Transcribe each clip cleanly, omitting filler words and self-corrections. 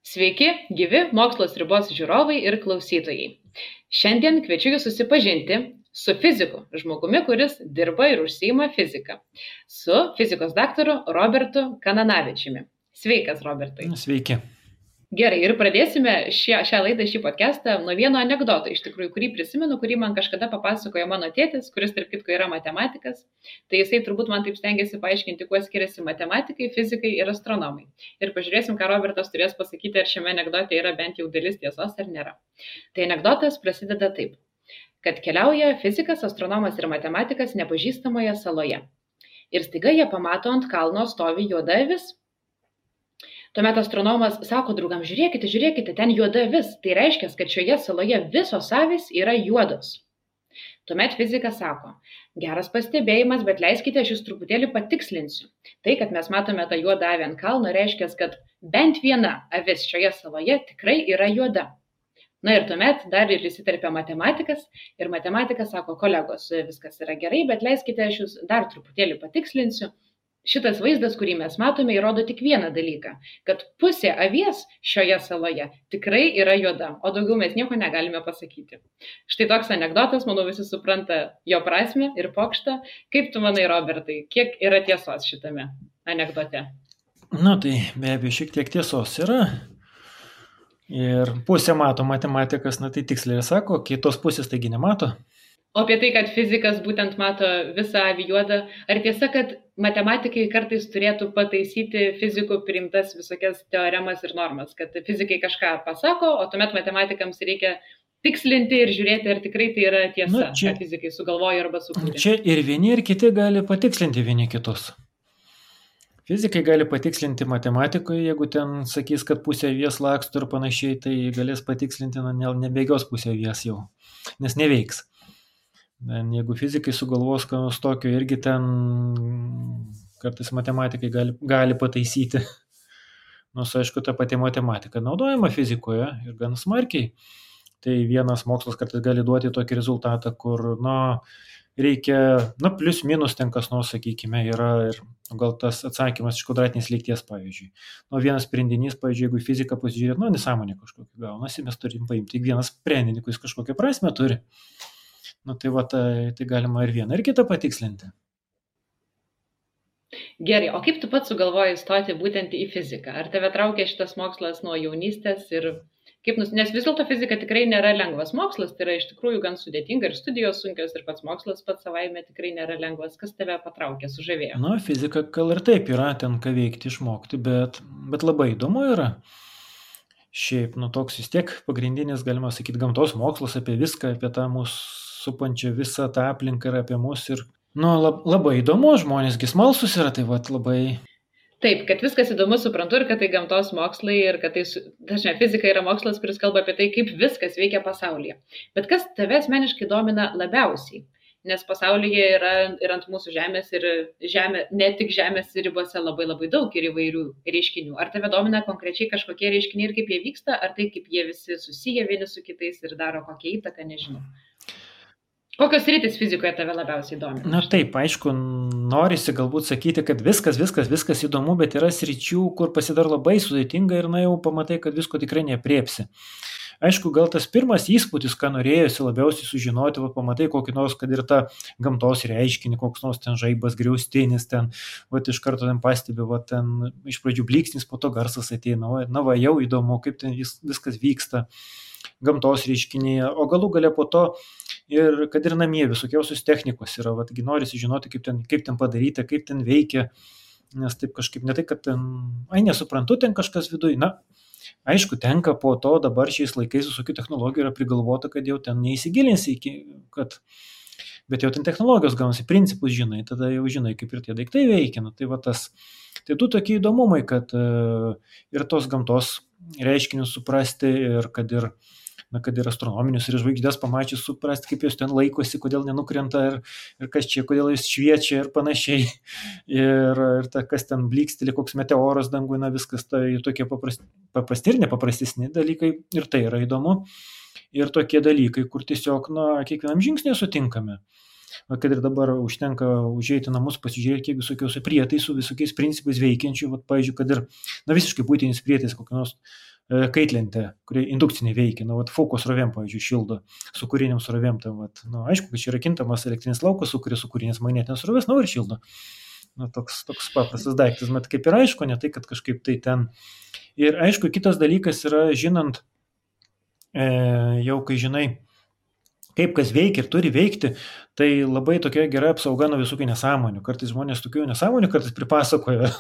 Sveiki, gyvi Mokslo ribos žiūrovai ir klausytojai. Šiandien kviečiu jūs susipažinti su fiziku, žmogumi, kuris dirba ir užsiima fiziką, su fizikos daktaru Robertu Kananavičiumi. Sveikas, Robertai. Sveiki. Gerai, ir pradėsime šią laidą, šį podcastą nuo vieno anekdoto, iš tikrųjų, kurį prisimenu, kurį man kažkada papasakojo mano tėtis, kuris tarp kitko yra matematikas. Tai jisai turbūt man taip stengiasi paaiškinti, kuo skiriasi matematikai, fizikai ir astronomai. Ir pažiūrėsim, ką Robertas turės pasakyti, ar šiame anekdote yra bent jau dalis tiesos ar nėra. Tai anekdotas prasideda taip, kad keliauja fizikas, astronomas ir matematikas nepažįstamoje saloje. Ir staiga jie pamato ant kalno stovi juoda avis. Tuomet astronomas sako draugam, žiūrėkite, ten juoda avis. Tai reiškia, kad šioje saloje visos avys yra juodos. Tuomet fizikas sako, geras pastebėjimas, bet leiskite, aš jūs truputėlį patikslinsiu. Tai, kad mes matome tą juodą avį ant kalno, reiškia, kad bent viena avis šioje saloje tikrai yra juoda. Na ir tuomet dar ir įsiterpia matematikas ir matematikas sako, kolegos, viskas yra gerai, bet leiskite, aš jūs dar truputėlį patikslinsiu. Šitas vaizdas, kurį mes matome, įrodo tik vieną dalyką, kad pusė avies šioje saloje tikrai yra juoda, o daugiau mes nieko negalime pasakyti. Štai toks anekdotas, manau, visi supranta jo prasmę ir pokštą. Kaip tu manai, Robertai, kiek yra tiesos šitame anekdote? Tai be abejo šiek tiek tiesos yra. Ir pusę mato matematikas, tai tiksliai sako, kitos pusės taigi nemato. O apie tai, kad fizikas būtent mato visą avį juodą, ar tiesa, kad matematikai kartais turėtų pataisyti fizikų priimtas visokias teoremas ir normas, kad fizikai kažką pasako, o tuomet matematikams reikia tikslinti ir žiūrėti, ar tikrai tai yra tiesa, ką fizikai sugalvoja arba sukūrė. Čia ir vieni, ir kiti gali patikslinti vieni kitus. Fizikai gali patikslinti matematikoje, jeigu ten sakys, kad pusė avies laksto ir panašiai, tai galės patikslinti, nebėgios pusė avies jau, nes neveiks. Jeigu fizikai sugalvos, ką nors tokio, irgi ten kartais matematikai gali pataisyti. Nors, aišku, ta pati matematika naudojama fizikoje ir gan smarkiai. Tai vienas mokslas kartais gali duoti tokį rezultatą, kur, reikia, plius minus ten kas nors, sakykime, yra ir gal tas atsakymas iš kvadratinės lygties, pavyzdžiui. Vienas sprendinys, pavyzdžiui, jeigu fiziką pasižiūrėt, nesąmonė kažkokia gaunasi, mes turim paimti tik vieną sprendinį, kuris kažkokią prasmę turi. Tai galima ir vieną, ir kitą patikslinti. Gerai, o kaip tu pats sugalvojai stoti būtent į fiziką? Ar tave traukia šitas mokslas nuo jaunystės? Nes vis dėlto fizika tikrai nėra lengvas mokslas, tai yra iš tikrųjų gan sudėtinga ir studijos sunkios ir pats mokslas pats savaime tikrai nėra lengvas. Kas tave patraukė, sužavėjo? Fizika gal ir taip yra, ten ką veikti, išmokti, bet labai įdomu yra. Šiaip, toks vis tiek pagrindinis, galima sakyti, gamtos mokslas apie viską, apie tą mūsų supančią visą tą aplinką ir apie mus. Ir, labai įdomu, žmonėsgi smalsus yra, tai labai... Taip, kad viskas įdomu, suprantu, ir kad tai gamtos mokslai, ir kad tai, dažnai fizika yra mokslas, kuris kalba apie tai, kaip viskas veikia pasaulyje. Bet kas tave asmeniškai domina labiausiai? Nes pasaulyje yra ir ant mūsų žemės, ir ne tik žemės ribose labai daug ir įvairių reiškinių. Ar tave domina konkrečiai kažkokie reiškiniai ir kaip jie vyksta, ar tai, kaip jie visi susiję vieni su kitais ir daro kokią įtaką, nežinau. Kokios sritys fizikoje tave labiausiai domina? Taip, aišku, norisi galbūt sakyti, kad viskas įdomu, bet yra sričių, kur pasidaro labai sudėtinga ir jau pamatai, kad visko tikrai neapriepsi. Aišku, gal tas pirmas įspūdis, ką norėjosi labiausiai sužinoti, pamatai kokį nors, kad ir tą gamtos reiškinį, koks nors ten žaibas, griaustinis, ten, iš karto ten pastebi, ten iš pradžių blyksnis, po to garsas ateina, jau įdomu, kaip ten viskas vyksta gamtos reiškinyje, o galų gale po to ir kad ir namie visokiausios technikos yra, norisi žinoti, kaip ten padaryta, kaip ten veikia, nes taip kažkaip ne tai, kad ten, nesuprantu, ten kažkas viduj, aišku, tenka po to dabar šiais laikais visokių technologijų yra prigalvota, kad jau ten neįsigilinsi bet jau ten technologijos gaunasi, principus žinai, tada jau žinai, kaip ir tie daiktai veikia, tai tu tokie įdomumai, kad ir tos gamtos reiškinius suprasti ir kad ir astronominius ir žvaigždės pamačius suprasti, kaip jos ten laikosi, kodėl nenukrenta ir kas čia, kodėl jis šviečia ir panašiai. Ir kas ten blyksteli, koks meteoras dangui, viskas tai tokie paprasti ir nepaprastesni dalykai ir tai yra įdomu. Ir tokie dalykai, kur tiesiog kiekvienam žingsnėje sutinkame. kad ir dabar užtenka užeiti namus, pasižiūrėti, kiek visokiausių prietaisų, visokiais principais veikiančių, vat, pavyzdžiui, kad ir, visiškai būtinis prietaisas, kokia nors kaitlentė, kurie indukciniai veikia, vat, fokus srovėm, pavyzdžiui, šildo, su kūriniam srovėm, vat, aišku, kad čia yra kintamas elektrinis laukas, sukuria su kūrinės magnetinės srovės, ir šildo. Toks paprastas daiktas, bet kaip ir aišku, ne tai, kad kažkaip tai ten. Ir aišku, kitas dalykas yra, žinant, jau kai žinai, kaip kas veikia ir turi veikti, tai labai tokia gera apsauga nuo visokių nesąmonių. Kartais žmonės tokių nesąmonių kartais pripasakoja,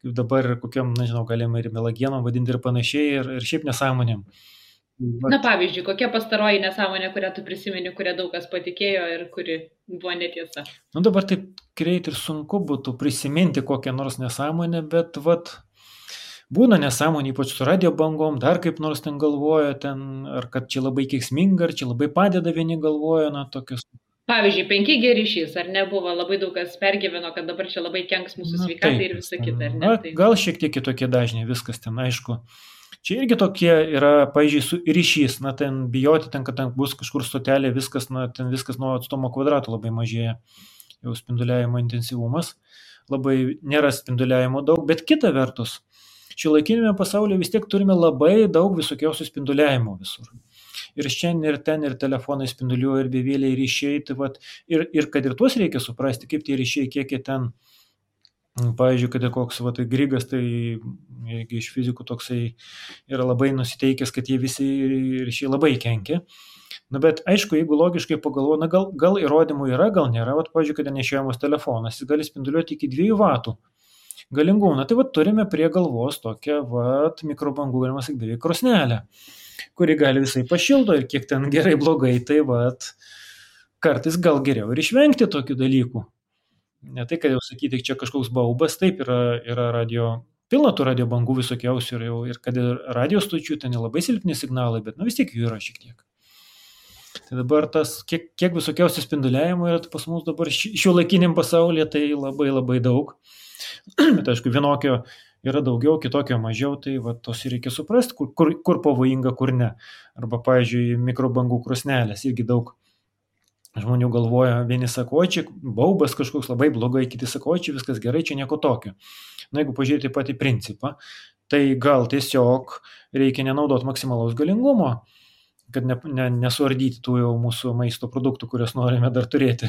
kaip dabar kokiam, nežinau, galima ir melagienom vadinti ir panašiai, ir šiaip nesąmonėm. Na, pavyzdžiui, kokia pastaroji nesąmonė, kurią tu prisimeni, kurią daug kas patikėjo ir kuri buvo netiesa? Dabar taip greit ir sunku būtų prisiminti kokią nors nesąmonę, bet būna nesąmonė, ypač su radio bangom, dar kaip nors ten galvoja, ar kad čia labai keiksminga, ar čia labai padeda, vieni galvoja, tokius. Pavyzdžiui, 5G ryšys, ar nebuvo, labai daug kas pergyveno, kad dabar čia labai kenks mūsų sveikatai ir visa kita, ar ne? Gal šiek tiek kitokie dažniai, viskas ten aišku. Čia irgi tokie yra, pavyzdžiui, ryšys, ten bijoti, kad ten bus kažkur stotelė, viskas, ten viskas nuo atstumo kvadrato labai mažėja, jau spinduliavimo intensyvumas, labai nėra spinduliavimo daug, bet kita vertus, šiuolaikinėme pasaulyje vis tiek turime labai daug visokiausių spinduliavimo visur. Ir šiandien, ir ten, ir telefonai spinduliuoja, ir bevėliai ryšiai, ir kad ir tuos reikia suprasti, kaip tie ryšiai, kiek jie ten, pavyzdžiui, kad ir koks Grigas, tai iš fizikų toksai yra labai nusiteikęs, kad jie visi ryšiai labai kenkia. Bet aišku, jeigu logiškai pagalvoja, gal įrodymų yra, gal nėra, pavyzdžiui, kad nešiojamas telefonas, jis gali spinduliuoti iki 2 vatų galingumą. Tai turime prie galvos tokią mikrobangų, galima sakyti, beveik krosnelę, kuri gali visai pašildo ir kiek ten gerai blogai, tai kartais gal geriau ir išvengti tokių dalykų. Ne tai, kad jau sakyti, čia kažkoks baubas, taip yra pilna tų radio bangų visokiausių ir kad ir radio stočių ten labai silpni signalai, bet vis tiek jų yra šiek tiek. Tai dabar tas, kiek visokiausių spinduliavimo yra pas mus dabar šiuolaikiniam pasaulyje, tai labai labai daug. Bet aišku, vienokio yra daugiau, kitokio mažiau, tai tos reikia suprasti, kur pavojinga, kur ne. Arba, pavyzdžiui, mikrobangų krosnelės irgi daug žmonių galvoja, vieni sako, čia baubas kažkoks labai blogai, kiti sako, čia viskas gerai, čia nieko tokio. Jeigu pažiūrėti patį principą, tai gal tiesiog reikia nenaudoti maksimalaus galingumo, kad nesuardyti tų jau mūsų maisto produktų, kurias norime dar turėti.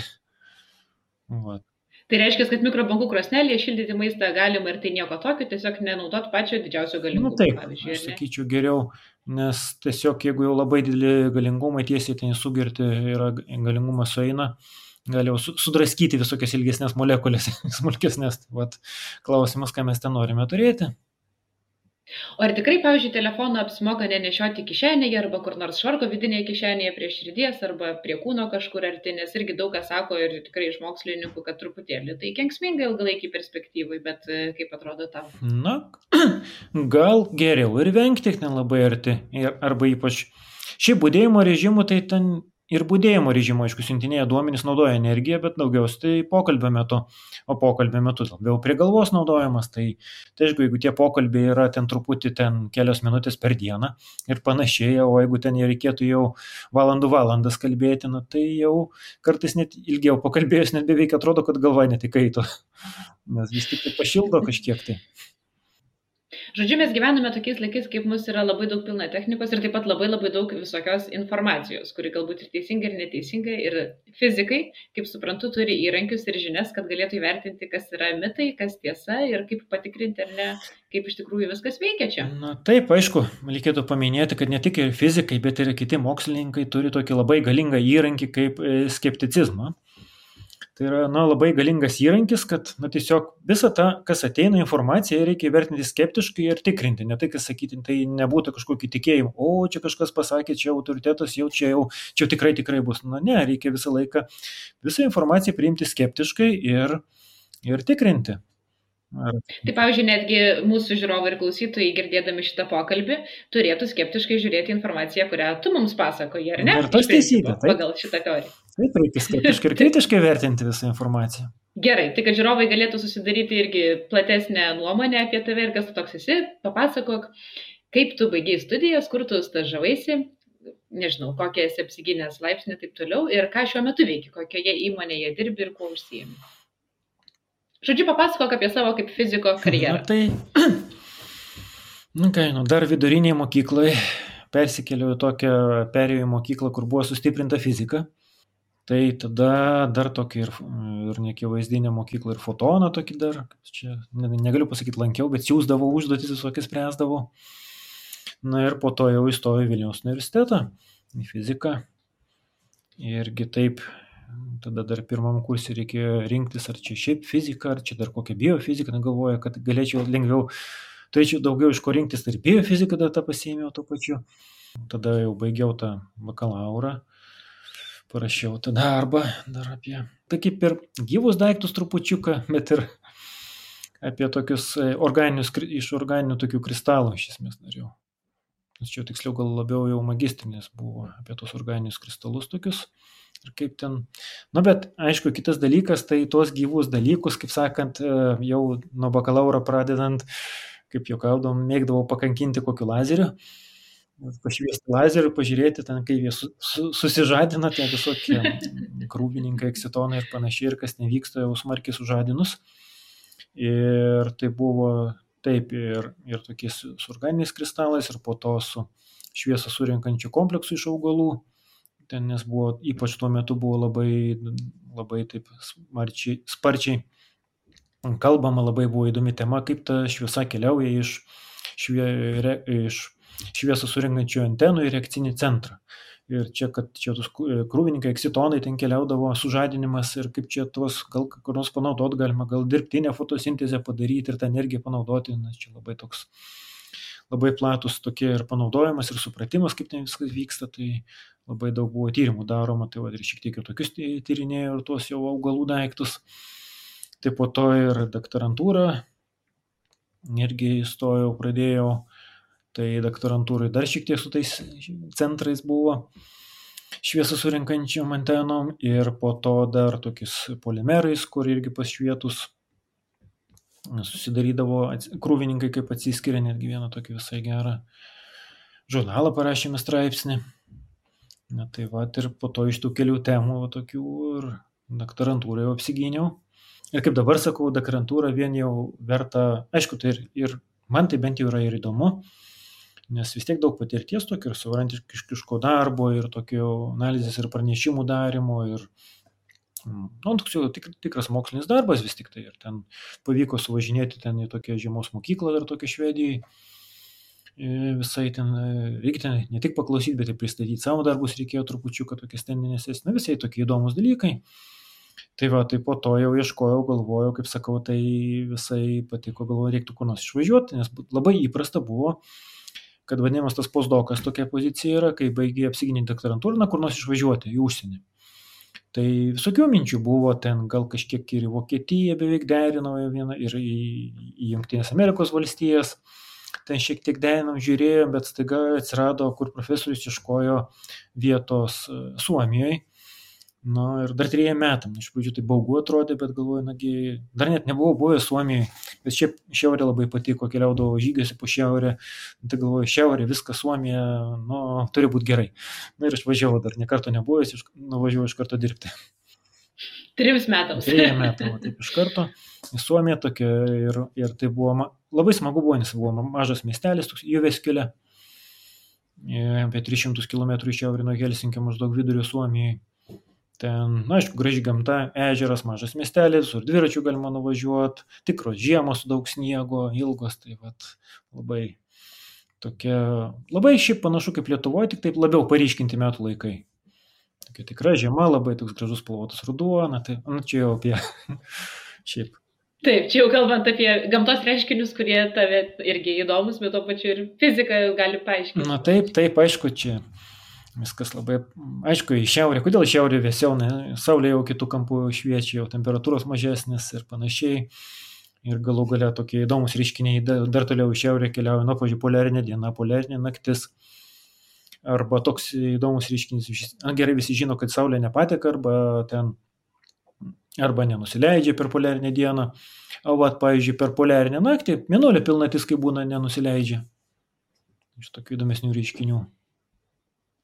Tai reiškia, kad mikrobangų krosnelėje šildyti maistą galima ir tai nieko tokio, tiesiog nenaudot pačio didžiausio galingumo. Taip, aš sakyčiau geriau, nes tiesiog jeigu jau labai dideli galingumai tiesiai ten sugerti ir galingumas sueina, gali jau sudraskyti visokias ilgesnės molekulės, smulkesnės. Klausimas, ką mes ten norime turėti. O ar tikrai, pavyzdžiui, telefoną apsimoka nenešioti kišenėje arba kur nors švarko vidinėje kišenėje prie širdies arba prie kūno kažkur arti, nes irgi daug kas sako ir tikrai iš mokslininkų, kad truputėlį tai kenksminga ilgalaikį perspektyvai, bet kaip atrodo tau? Gal geriau ir vengti ten labai arti, arba ypač šiaip budėjimo režimų, tai ten ir budėjimo režimo, aišku, siuntinėje duomenys naudoja energiją, bet daugiausiai tai pokalbio metu, o pokalbio metu labiau prie galvos naudojamas, tai aišku, jeigu tie pokalbiai yra ten truputį kelios minutės per dieną ir panašiai, o jeigu ten reikėtų jau valandas kalbėti, tai jau kartais net ilgiau pakalbėjus, net beveik atrodo, kad galva netikaito, nes vis tik tai pašildo kažkiek tai. Žodžiu, mes gyvename tokiais laikais, kaip mus yra labai daug pilna technikos ir taip pat labai daug visokios informacijos, kuri galbūt ir teisinga ir neteisinga. Ir fizikai, kaip suprantu, turi įrankius ir žinias, kad galėtų įvertinti, kas yra mitai, kas tiesa ir kaip patikrinti ar ne, kaip iš tikrųjų viskas veikia čia. Taip, aišku, reikėtų paminėti, kad ne tik ir fizikai, bet ir kiti mokslininkai turi tokį labai galingą įrankį kaip skepticizmą. Tai yra labai galingas įrankis, kad tiesiog visą tą, kas ateina informaciją, reikia vertinti skeptiškai ir tikrinti. Ne tai, kas sakyti, tai nebūtų kažkokį tikėjimą, čia kažkas pasakė, čia autoritetas, čia tikrai bus. Ne, reikia visą laiką visą informaciją priimti skeptiškai ir tikrinti. Tai pavyzdžiui, netgi mūsų žiūrovai ir klausytojai, girdėdami šitą pokalbį, turėtų skeptiškai žiūrėti informaciją, kurią tu mums pasakoji, ar ne? Ir tas teisybė, pagal šitą teoriją. Taip, reikia skeptiškai ir kritiškai vertinti visą informaciją. Gerai, tai kad žiūrovai galėtų susidaryti irgi platesnę nuomonę apie tave ir kas tu toks esi, papasakok, kaip tu baigei studijas, kur tu stažavaisi, nežinau, kokią esi apsigynęs laipsnį ir taip toliau, ir ką šiuo metu veiki, kokioje įmonėje dirbi ir kuo užsiimi. Žodžiu, papasakok apie savo kaip fiziko karjerą. Na tai, dar viduriniai mokyklai persikėliau į tokią perėjų mokyklą, kur buvo sustiprinta fizika. Tai tada dar tokį ir neakivaizdinę mokyklą ir fotoną tokį dar, čia negaliu pasakyti lankiau, bet siūsdavau užduotis visokias spręsdavau. Na ir po to jau įstojau į Vilniaus universitetą, į fiziką. Irgi taip, tada dar pirmam kursui reikėjo rinktis, ar čia šiaip fizika, ar čia dar kokia biofizika, negalvoju, kad galėčiau lengviau, turėčiau daugiau iš ko rinktis, tai ir biofiziką dar tą pasiėmiau tuo pačiu. Tada jau baigiau tą bakalaurą. Parašiau tą darbą dar apie, tai kaip ir gyvus daiktus trupučiuką, bet ir apie tokius iš organinių tokių kristalų iš esmės norėjau. Nes čia tiksliau gal labiau jau magistrinis buvo apie tos organinius kristalus tokius ir kaip ten. Na bet aišku, kitas dalykas, tai tuos gyvus dalykus, kaip sakant, jau nuo bakalauro pradedant, kaip juokaudom, mėgdavau pakankinti kokiu lazeriu. Pašviesti lazerių, pažiūrėti ten, kaip jie susižadina, tie visokie krūvininkai, eksitonai ir panašiai, ir kas nevyksta jau smarkiai sužadinus. Ir tai buvo taip ir tokiais su organiniais kristalais, ir po to su šviesą surinkančiu kompleksu iš augalų. Ten nes buvo, ypač tuo metu buvo labai taip sparčiai kalbama, labai buvo įdomi tema, kaip ta šviesa keliauja iš šviesą surinkančių antenų į reakcinį centrą. Ir čia, kad čia tos krūvininkai, eksitonai ten keliaudavo, sužadinimas ir kaip čia tuos gal kur nors panaudoti galima, gal dirbtinę fotosintezę padaryti ir tą energiją panaudoti, nes čia labai platus tokie ir panaudojimas ir supratimas, kaip ten viskas vyksta, tai labai daug buvo tyrimų daroma, tai ir šiek tiek ir tokius tyrinėjau ir tuos jau augalų daiktus. Tai po to ir doktorantūrą irgi įstojau, pradėjau. Tai doktorantūrai dar šiek tiek su tais centrais buvo šviesą surinkančiom antenom ir po to dar tokiais polimerais, kur irgi pašvietus susidarydavo krūvininkai, kaip atsiskiria, netgi vieną tokį visai gerą žurnalą parašėme straipsnį. Na tai va, ir po to iš tų kelių temų tokių ir doktorantūrą jau apsigyniau. Ir kaip dabar sakau, doktorantūra vien jau verta, aišku, tai ir man tai bent jau yra ir įdomu, nes vis tiek daug patirties tokio ir savarankiško darbo, ir tokio analizės ir pranešimų darimo, ir toks jau tikras mokslinis darbas vis tik tai. Ir ten pavyko suvažinėti ten į tokią žiemos mokyklą dar tokią Švedijai. Visai ten reikia ten ne tik paklausyti, bet ir pristatyti savo darbus reikėjo trupučiuką tokias teminės, visai tokie įdomus dalykai. Tai va, tai po to jau ieškojau, galvojau, kaip sakau, tai visai patiko, galvojau, reiktų kur nors išvažiuoti, nes labai įprasta buvo, kad vadinamas tas postdokas tokia pozicija yra, kai baigiai apsiginti doktorantūrą, kur nors išvažiuoti į užsienį. Tai visokių minčių buvo, ten gal kažkiek ir į Vokietiją beveik derinau vieną, ir į Jungtinės Amerikos valstijas, ten šiek tiek derinom, žiūrėjom, bet staiga atsirado, kur profesorius ieškojo vietos Suomijoje. Na ir dar 3 metam, iš pradžių tai baugu atrodė, bet galvoju, nagi, dar net nebuvau buvęs Suomijoje, bet šiaip šiaurė labai patiko, keliaudavo žygiuose po šiaurę, tai galvoju, šiaurė, viskas Suomija, turi būti gerai. Na ir aš važiavau, dar nekarto nebuvęs, nuvažiavau iš karto dirbti. 3 metams. 3 metam, taip iš karto. Į Suomiją tokia ir tai buvo, labai smagu buvo, nes buvo mažas miestelis, toks Jyväskylä, apie 300 km iš šiaurė nuo Helsinkio, maždaug vidurio Suomijai. Ten, aišku, graži gamta, ežeras, mažas miestelis, ir dviračių galima nuvažiuoti, tikros žiemos su daug sniego, ilgos, tai vat labai tokia, labai šiaip panašu kaip Lietuvoje, tik taip labiau paryškinti metų laikai. Tokia tikra žiema, labai toks gražus spalvotas ruduo, tai čia jau apie šiaip. Taip, čia jau kalbant apie gamtos reiškinius, kurie tave irgi įdomus, bet to pačiu ir fiziką gali paaiškinti. Na taip, aišku, čia viskas labai, aišku, į šiaurę. Kodėl į šiaurę vėsiau, saulė jau kitų kampų šviečia, jau temperatūros mažesnės ir panašiai. Ir galų galia tokie įdomus reiškiniai dar toliau į šiaurę keliauja, pavyzdžiui, poliarinė diena, poliarinė naktis. Arba toks įdomus reiškinys, gerai visi žino, kad saulė nepateka, arba nenusileidžia per poliarinę dieną. O pavyzdžiui, per poliarinę naktį mėnulio pilnatis, kai būna, nenusileidžia. Iš tokių įdomesnių reiškinių.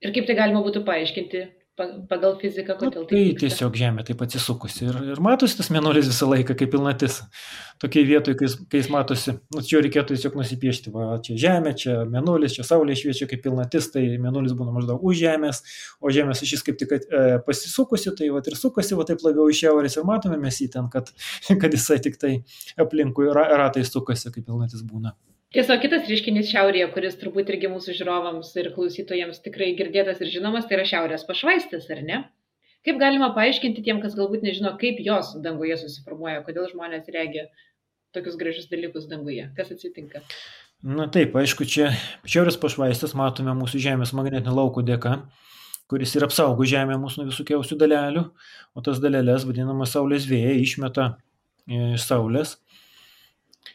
Ir kaip tai galima būtų paaiškinti pagal fiziką, Nu, kodėl tai tai vyksta? tiesiog Žemė taip atsisukusi ir matosi tas mėnulis visą laiką kaip pilnatis. Tokiai vietoj, kai jis matosi, nu, čia reikėtų tiesiog nusipiešti, va, čia Žemė, čia mėnulis, čia Saulė šviečia kaip pilnatis, tai mėnulis būna maždaug už Žemės, o Žemės ašis kaip tik pasisukusi, tai va ir sukasi, va taip labiau iš šiaurės ir matome mes jį ten, kad jisai tik tai aplinkui ratai sukasi, kaip pilnatis būna. Tiesiog kitas reiškinys šiaurėje, kuris turbūt irgi mūsų žiūrovams ir klausytojams tikrai girdėtas ir žinomas, tai yra šiaurės pašvaistės, ar ne? Kaip galima paaiškinti tiem, kas galbūt nežino, kaip jos danguje susiformuoja, kodėl žmonės regia tokius gražius dalykus danguje? Kas atsitinka? Na taip, aišku, čia šiaurės pašvaistės matome mūsų Žemės magnetinio lauko dėka, kuris ir apsaugo Žemę mūsų nuo visokiausių dalelių, o tas dalelės, vadinamas Saulės vėjai, išmeta iš Saulės.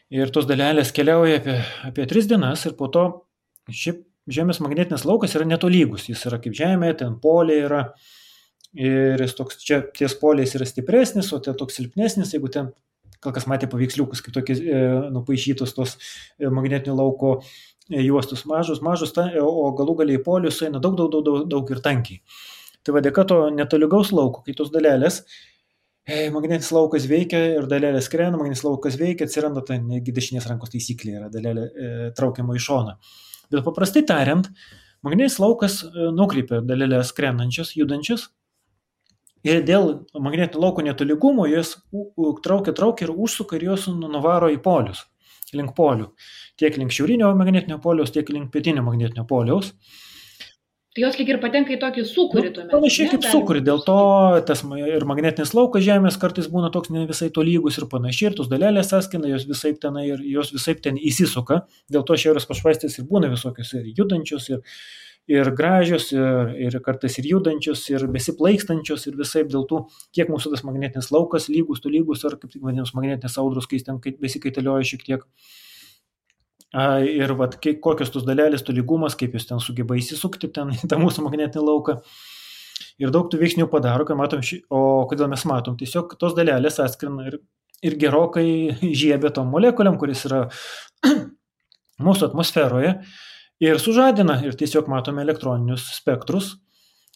Ir tos dalelės keliauja apie 3 dienas ir po to šiaip Žemės magnetinis laukas yra netolygus. Jis yra kaip Žemė, ten poliai yra ir jis toks, čia ties poliais yra stipresnis, o ten toks silpnesnis, jeigu ten, gal kas matė paveiksliukus, kaip tokie nupaišytos tos magnetinio lauko juostus mažus, o galų galiai polius eina daug ir tankiai. Tai va dėka to netolygaus lauko, kai tos dalelės magnetinis laukas veikia ir dalelė skrenda, magnetinis laukas veikia, atsiranda ta negi dešinės rankos taisyklė, yra dalelė traukiama į šoną. Bet paprastai tariant, magnetinis laukas nukreipia dalelės skrendančias, judančias ir dėl magnetinio lauko netolygumo jos traukia ir užsuka ir jos nuvaro į polius, link polių. Tiek link šiaurinio magnetinio poliaus, tiek link pietinio magnetinio poliaus. Tai jos lyg ir patenka į tokį sūkurį tuomet. Panašiai kaip sūkurį, dėl to tas ir magnetinis laukas Žemės kartais būna toks ne visai tolygus ir panašiai, ir tos dalelės sąskina, jos visaip ten įsisuka, dėl to šiaurės pašvaistės ir būna visokios ir judančios, ir gražios, ir kartais ir judančios, ir besiplaikstančios, ir visaip dėl tų, kiek mūsų tas magnetinis laukas lygus, tolygus, ar kaip tik vadinamas magnetinės audros, kai jis ten besikaitaliuoja šiek tiek. Ir vat, kokios tos dalelės, tolygumas, kaip jūs ten sugeba įsisukti ten į tą mūsų magnetinį lauką. Ir daug tų veiksnių padaro, kai matom, o kodėl mes matom, tiesiog tos dalelės atskrina ir gerokai žiebia tom molekuliam, kuris yra mūsų atmosferoje ir sužadina ir tiesiog matome elektroninius spektrus.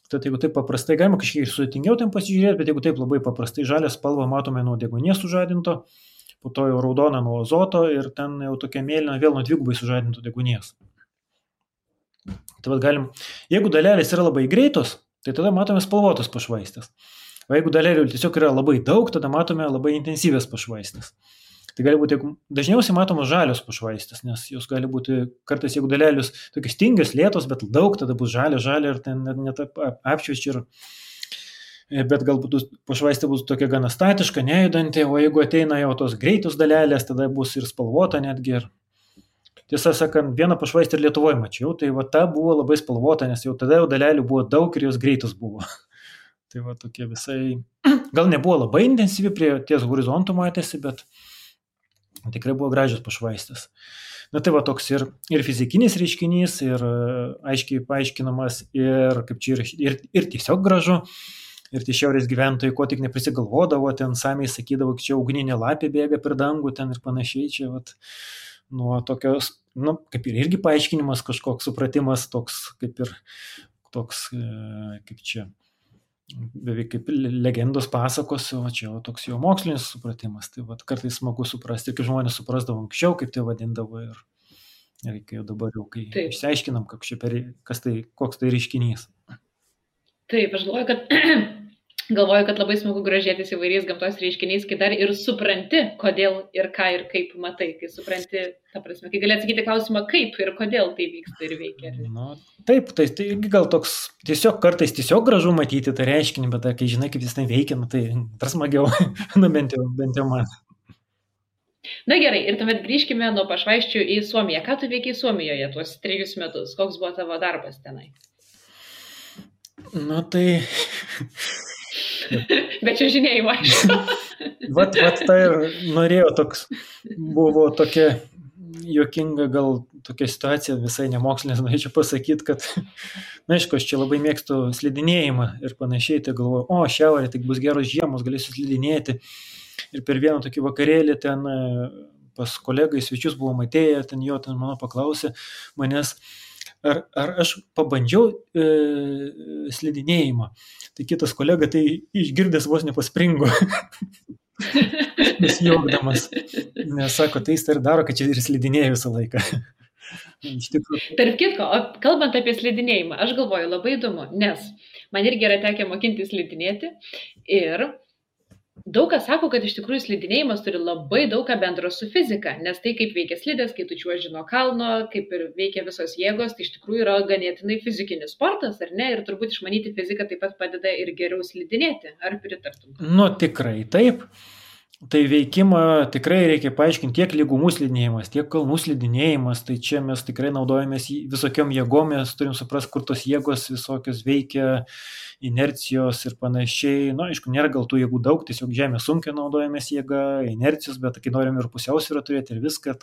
Tad jeigu taip paprastai, galima kažkiek ir sudėtingiau ten pasižiūrėti, bet jeigu taip labai paprastai žalią spalvą matome nuo deguonies sužadinto, po to jau raudona nuo azoto ir ten jau tokia mėlyna vėl nuo dvigubai sužadinto deguonies. Tai galim, jeigu dalelės yra labai greitos, tai tada matome spalvotas pašvaistės. O jeigu dalelių tiesiog yra labai daug, tada matome labai intensyvės pašvaistės. Tai gali būti, dažniausiai matomos žalios pašvaistės, nes jos gali būti, kartais jeigu dalelius tokios tingios, lėtos, bet daug, tada bus žalia ir ten net apšviečia ir bet galbūt pašvaistė bus tokia gana statiška, nejudanti, o jeigu ateina jau tos greitos dalelės, tada bus ir spalvota netgi. Ir tiesą sakant, vieną pašvaistę ir Lietuvoje mačiau, tai va ta buvo labai spalvota, nes jau tada jau dalelių buvo daug ir jos greitos buvo. Tai va tokie visai, gal nebuvo labai intensyvi prie ties horizontų matėsi, bet tikrai buvo gražios pašvaistės. Na tai va toks ir fizikinis reiškinys, ir aiškiai paaiškinamas, ir kaip čia ir tiesiog gražu. Ir tie šiaurės gyventojai, ko tik neprisigalvodavo, ten samiai sakydavo, kad čia ugninė lapė bėga per dangų ten ir panašiai. Čia vat, nuo tokios, kaip ir irgi paaiškinimas, kažkoks supratimas, toks kaip čia, beveik kaip legendos pasakos, o čia toks jo mokslinis supratimas. Tai vat, kartais smagu suprasti, kaip žmonės suprasdavo anksčiau, kaip tai vadindavo ir kai jau dabar jau, kai išsiaiškinam, koks tai reiškinys. Taip, aš galvoju, kad labai smagu grožėtis įvairiais gamtos reiškiniais, kai dar ir supranti, kodėl ir ką ir kaip matai, kai supranti, ta prasme, kai gali atsakyti klausimą, kaip ir kodėl tai vyksta ir veikia. Taip, tai gal toks kartais tiesiog gražu matyti tą reiškinį, bet kai žinai, kaip jis ten veikia, tai dar smagiau, bent jau man. Na gerai, ir tuomet grįžkime nuo pašvaisčių į Suomiją. Ką tu veikiai Suomijoje tuos 3 metus? Koks buvo tavo darbas tenai? Tai... Bet čia žinėjimo, aišku. Vat tai ir norėjau buvo tokia juokinga gal tokia situacija, visai nemokslinės, norėčiau pasakyti, kad, aišku, aš čia labai mėgstu slidinėjimą ir panašiai, tai galvoju, šiaurė, tai bus geros žiemos, galėsiu slidinėti. Ir per vieną tokį vakarėlį ten pas kolegai svečius buvom atėję, ten mano paklausė manęs, ar aš pabandžiau slidinėjimą. Tai kitas kolega tai išgirdęs vos nepaspringo, nesijuokdamas, nes sako, tai jis ir daro, kad čia ir slidinėja visą laiką. Iš tikrųjų. Tarp kitko, kalbant apie slidinėjimą, aš galvoju, labai įdomu, nes man irgi yra tekę mokinti slidinėti ir daug kas sako, kad iš tikrųjų slidinėjimas turi labai daug ką bendro su fizika, nes tai kaip veikia slidės, kai tu čiuoži nuo kalno, kaip ir veikia visos jėgos, tai iš tikrųjų yra ganėtinai fizikinis sportas, ar ne? Ir turbūt išmanyti fiziką taip pat padeda ir geriau slidinėti. Ar pritartum? Nu, tikrai taip. Tai veikimą tikrai reikia paaiškinti tiek lygumų slidinėjimas, tiek kalnų slidinėjimas, tai čia mes tikrai naudojamės visokiom jėgom, mes turim suprasti, kur tos jėgos visokios veikia, inercijos ir panašiai. Na, aišku, nėra gal tų jėgų daug, tiesiog žemės sunkiai naudojamės jėga, inercijos, bet kai norim ir pusiausvyrą turėti ir viską,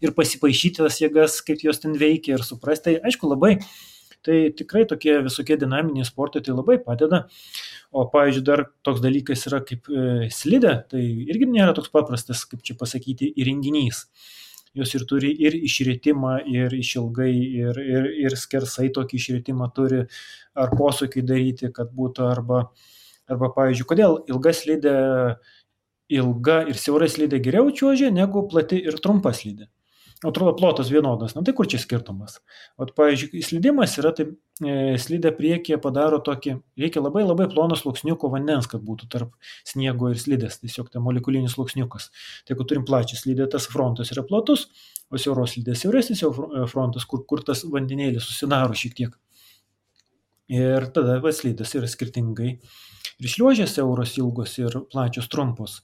ir pasipaišyti tas jėgas, kaip jos ten veikia ir suprasti, tai aišku labai. Tai tikrai tokie visokie dinaminiai sportai tai labai padeda. O, pavyzdžiui, dar toks dalykas yra kaip slidė, tai irgi nėra toks paprastas, kaip čia pasakyti, įrenginys. Jos ir turi ir išritimą, ir išilgai, ir skersai tokį išritimą turi, ar posūkį daryti, kad būtų, arba pavyzdžiui, kodėl ilga ir siaura slidė geriau čiuožia negu plati ir trumpa slidė. Atrodo, plotas vienodas, tai kur čia skirtumas? O, pavyzdžiui, slidimas yra, tai slidė priekyje padaro tokį, reikia labai labai plono sluoksniuko vandens, kad būtų tarp sniego ir slidės, tiesiog tai molekulinis sluoksniukas. Tai jeigu turim plačią slidę, tas frontas yra platus, o siauros slidės siauresnis jau frontas, kur tas vandenėlis susidaro šiek tiek. Ir tada slidės yra skirtingai. Ir šliuožės siauros ilgos ir plačios trumpos.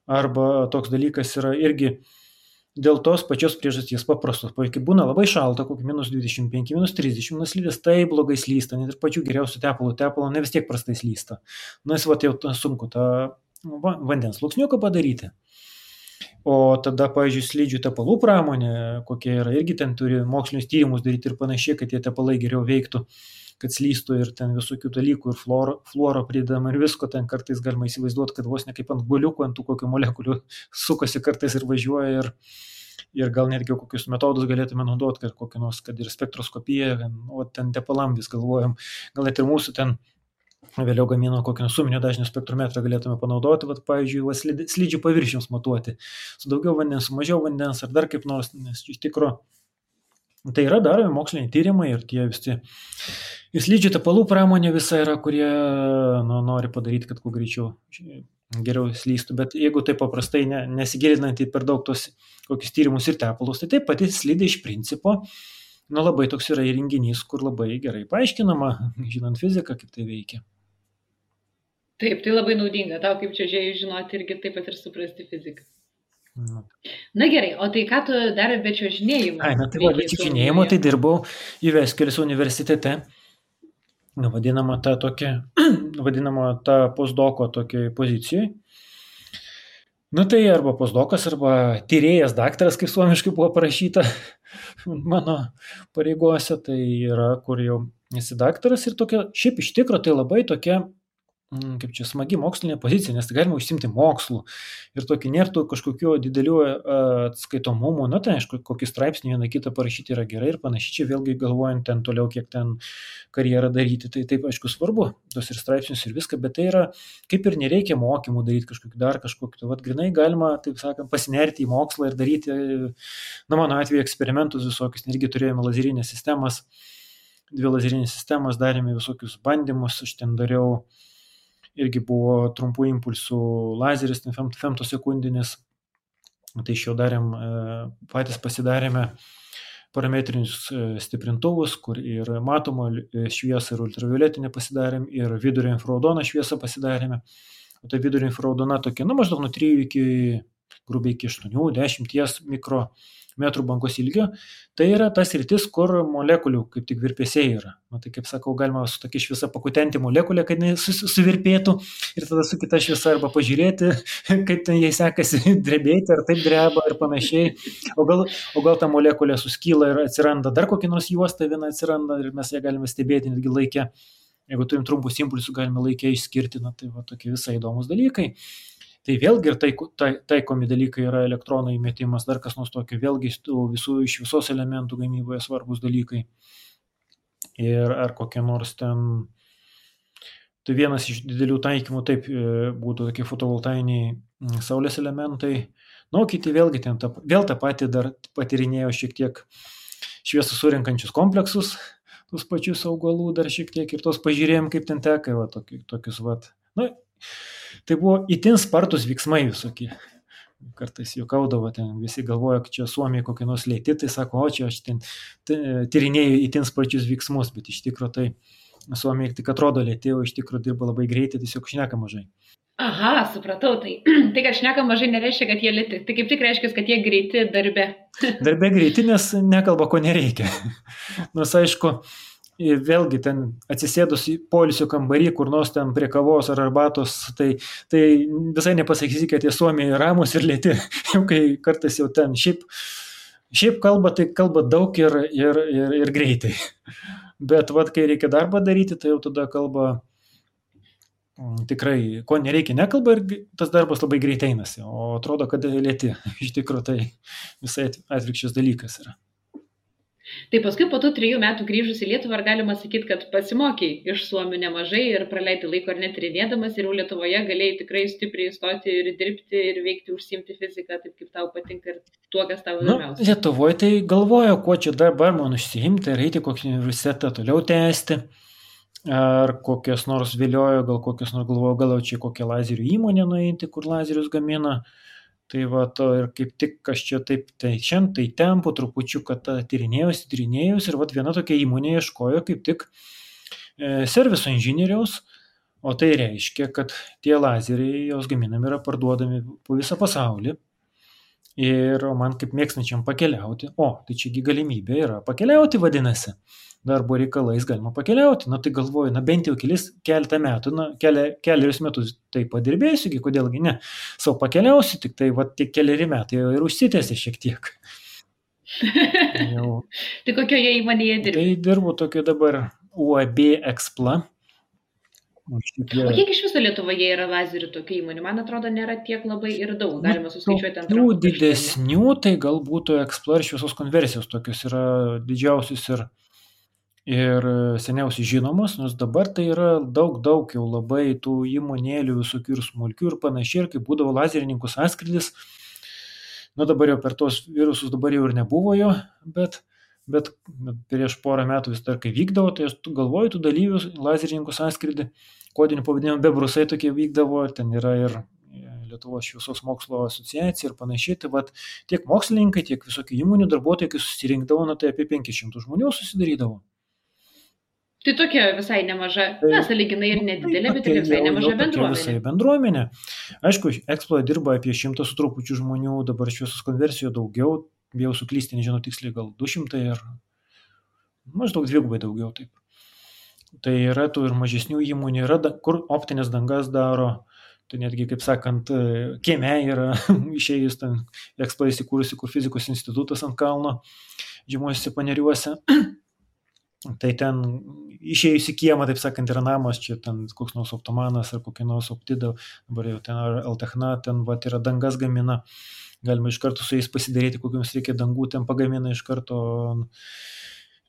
Arba toks dalykas yra irgi dėl tos pačios priežasties paprastos. Kai būna labai šalta, kokį -25, -30, slidės tai blogai slysta, net ir pačių geriausių tepalo ne vis tiek prastai slysta. Jis jau sunku tą vandens sluoksniuką padaryti. O tada, pavyzdžiui, slidžių tepalų pramonė, kokie yra, irgi ten turi mokslinius tyrimus daryti ir panašiai, kad tie tepalai geriau veiktų, kad slystų ir ten visokių dalykų, ir fluoro pridama ir visko, ten kartais galima įsivaizduoti, kad vos ne kaip ant guoliukų, ant tų kokių molekulių sukasi kartais ir važiuoja ir gal netgi kokius metodus galėtume naudoti, kad kokį nors, kad ir spektroskopiją, o ten tepalam vis galvojam, gal net ir mūsų ten vėliau gamino kokį suminio dažnio spektrometrą galėtume panaudoti, pavyzdžiui, slidžių paviršiams matuoti, su daugiau vandens, su mažiau vandens, ar dar kaip nors, nes iš tikro tai yra daromi moksliniai tyrimai ir tie visi. Ir slidžių tepalų pramonė visa yra, kurie nori padaryti, kad kuo greičiau geriau slystų, bet jeigu tai paprastai nesigilinant į per daug tos kokius tyrimus ir tepalus, tai taip pati slidė iš principo, labai toks yra įrenginys, kur labai gerai paaiškinama, žinant fiziką, kaip tai veikia. Taip, tai labai naudinga, tau kaip čiuožėjui žinoti irgi taip pat ir suprasti fiziką. Na gerai, o tai ką tu dar be čiuožinėjimo? Be čiuožinėjimo tai dirbau Jyväskylä's universitete, vadinama ta postdoko tokiai pozicijai. Tai arba postdokas, arba tyrėjas daktaras, kaip suomiškai buvo parašyta mano pareigose, tai yra, kur jau esi daktaras ir tokia, šiaip iš tikro tai labai tokia, kaip čia smagi mokslinė pozicija, nes tai galima užsimti mokslu ir tokį nėra kažkokių didelių atskaitomumų, tai aišku, kokį straipsnį vieną kitą parašyti yra gerai ir panašiai, čia vėlgi galvojant ten toliau, kiek ten karjerą daryti, tai taip aišku svarbu, tos ir straipsnius ir viską, bet tai yra, kaip ir nereikia mokymų daryti kažkokiu, grinai galima, taip sakant, pasinerti į mokslą ir daryti, mano atveju eksperimentus visokius, irgi turėjome lazerinės sistemas, 2 lazerinės sistemas, darėme visokius bandymus, aš ten dariau irgi buvo trumpų impulsų lazeris, femtosekundinis, tai iš jo patys pasidarėme parametrinius stiprintuvus, kur ir matomo šviesą ir ultravioletinę pasidarėm, ir vidurio infraraudoną šviesą pasidarėme. O tai vidurio infraraudona tokia, maždaug nuo 3 iki grubiai iki 8-10 mikrometrų bangos ilgio. Tai yra tas sritis, kur molekulių kaip tik virpesiai yra. Tai kaip sakau, galima su tokia šviesa pakutenti molekulę, kad jinai suvirpėtų ir tada su kita šviesa arba pažiūrėti, kaip ten jai sekasi drebėti, ar taip dreba ir panašiai. O gal ta molekulė suskyla ir atsiranda dar kokia nors juosta viena atsiranda ir mes ją galime stebėti netgi laikę. Jeigu turim trumpus impulsus, galime laikę išskirti, tai tokie visai įdomus dalykai. Tai vėlgi ir taikomi dalykai yra elektronų įmetimas, dar kas nors tokio, vėlgi iš visos elementų gamyboje svarbus dalykai. ir ar kokie nors ten, tai vienas iš didelių taikymų taip būtų tokie fotovoltainiai saulės elementai. Nu, kiti vėlgi ten vėl tą patį dar patyrinėjo šiek tiek šviesą surinkančius kompleksus, tus pačius augalų dar šiek tiek ir tos pažiūrėjom, kaip ten teka, va, tokius, va. Nu, tai buvo itin spartus veiksmai visokie. Kartais juokaudavo, ten visi galvoja, kad čia Suomiai kokie nors lėti, tai sako, o čia aš ten tyrinėjau itin sparčius veiksmus, bet iš tikrųjų tai Suomiai tik atrodo lėti, o iš tikrųjų dirba labai greitai, tiesiog šneka mažai. Aha, supratau, tai kad šneka mažai nereiškia, kad jie lėti, tai kaip tik reiškia, kad jie greiti darbe. Darbe greiti, nes nekalba, ko nereikia. Nors aišku, vėlgi ten atsisėdus į poilsio kambarį, kur nors ten prie kavos ar arbatos, tai visai nepasakysi, kad jie Suomiai ramus ir lėti, jau kai kartais jau ten šiaip kalba, tai kalba daug ir greitai. Bet vat, kai reikia darbą daryti, tai jau tada kalba tikrai, ko nereikia, nekalba ir tas darbas labai greitai einasi, o atrodo, kad lėti. Iš tikrųjų tai visai atvirkščias dalykas yra. Tai paskui po tų 3 metų grįžus į Lietuvą, ar galima sakyti, kad pasimokiai iš suomių nemažai ir praleidai laiko ar net tyrinėdamas ir jau Lietuvoje galėjai tikrai stipriai stoti ir dirbti ir veikti, užsiimti fiziką, taip kaip tau patinka ir tuo, kas tau įdomiausia. Lietuvoje tai galvoju, kuo čia dabar man užsiimti, ar eiti kokį universitetą toliau tęsti, ar kokias nors viliojo, gal kokias nors galvoju, gal čia kokią lazerių įmonę nueiti, kur lazerius gamina. Tai va, to ir kaip tik aš čia taip, tai šiandien, tai ten po trupučiu, kad tyrinėjus ir va viena tokia įmonė ieškojo kaip tik serviso inžinieriaus, o tai reiškia, kad tie lazeriai, jos gaminami yra parduodami po visą pasaulį ir man kaip mėgstančiam pakeliauti, tai čiagi galimybė yra pakeliauti vadinasi. Darbo reikalais galima pakeliauti, tai galvoju, bent jau keletą metų, keliarius metus tai padirbėsiu, kodėlgi ne, savo pakeliausiu, tik tai tie keliari metai jau ir užsitęsė šiek tiek. Tai kokioje įmonėje dirbi? Tai dirbu tokio dabar UAB Expla. O kiek iš viso Lietuvoje yra lazerių tokių įmonių? Man atrodo, nėra tiek labai ir daug, galima suskaičiuoti ant rankų. Didesnių, tai galbūt Expla ir šviesos konversijos tokios yra didžiausius ir seniausiai žinomos, nors dabar tai yra daug jau labai tų įmonėlių visokių ir smulkių ir panašiai, ir kaip būdavo lazerininkų sąskrydis, dabar jau per tos virusus dabar jau ir nebuvo jo, bet prieš porą metų vis dar kai vykdavo, tai aš galvoju, tų dalyvių lazerininkų sąskrydį, kodinių pavadinimų bebrusai tokie vykdavo, ten yra ir Lietuvos šviesos mokslo asociacija ir panašiai, tai tiek mokslininkai, tiek visokių įmonių darbuotojai, kai susirinkdavo, tai apie 500 žmonių susidarydavo. Tai tokia visai nemaža, sąlyginai ir nedidelė, bet ir visai nemaža bendruomenė. Visai bendruomenė. Aišku, Exploje dirba apie 100 su trupučiu žmonių, dabar šviesos konversijoje daugiau, bijau suklysti, nežinau tiksliai, gal 200 ir maždaug dvigubai daugiau taip. Tai yra tų ir mažesnių įmonių, yra kur optinės dangas daro, tai netgi, kaip sakant, kieme yra išėjus ten Exploje įsikūrusi, kur fizikos institutas ant kalno, žemuosiuose Paneriuose. Tai ten išėjus į kiemą, taip sakant, yra namas, čia ten koks nors optomanas ar kokia nors optida, dabar jau ten Altechna, ten yra dangas gamina, galima iš karto su jais pasidaryti, kokiams reikia dangų, ten pagamina iš karto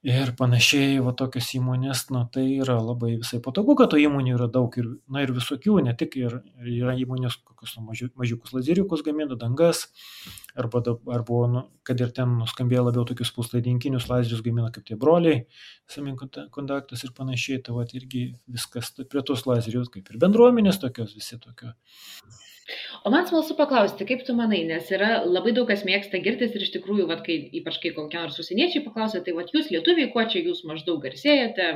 ir panašiai, tokios įmonės, tai yra labai visai patogu, kad to įmonių yra daug ir visokių, ne tik ir yra įmonės, kokius mažiukus lazeriukus gamina, dangas, arba kad ir ten nuskambėjo labiau tokius puslaidinkinius lazerius gamina kaip tie broliai, semikontaktas ir panašiai, tai irgi viskas prie tos lazerius, kaip ir bendruomenės tokios, visi tokio. O man smalsu paklausti, kaip tu manai, nes yra labai daug kas mėgsta girtis ir iš tikrųjų, ypač kai kokie nors užsieniečiai paklausia, tai jūs lietuviai, kuo čia jūs maždaug garsėjate,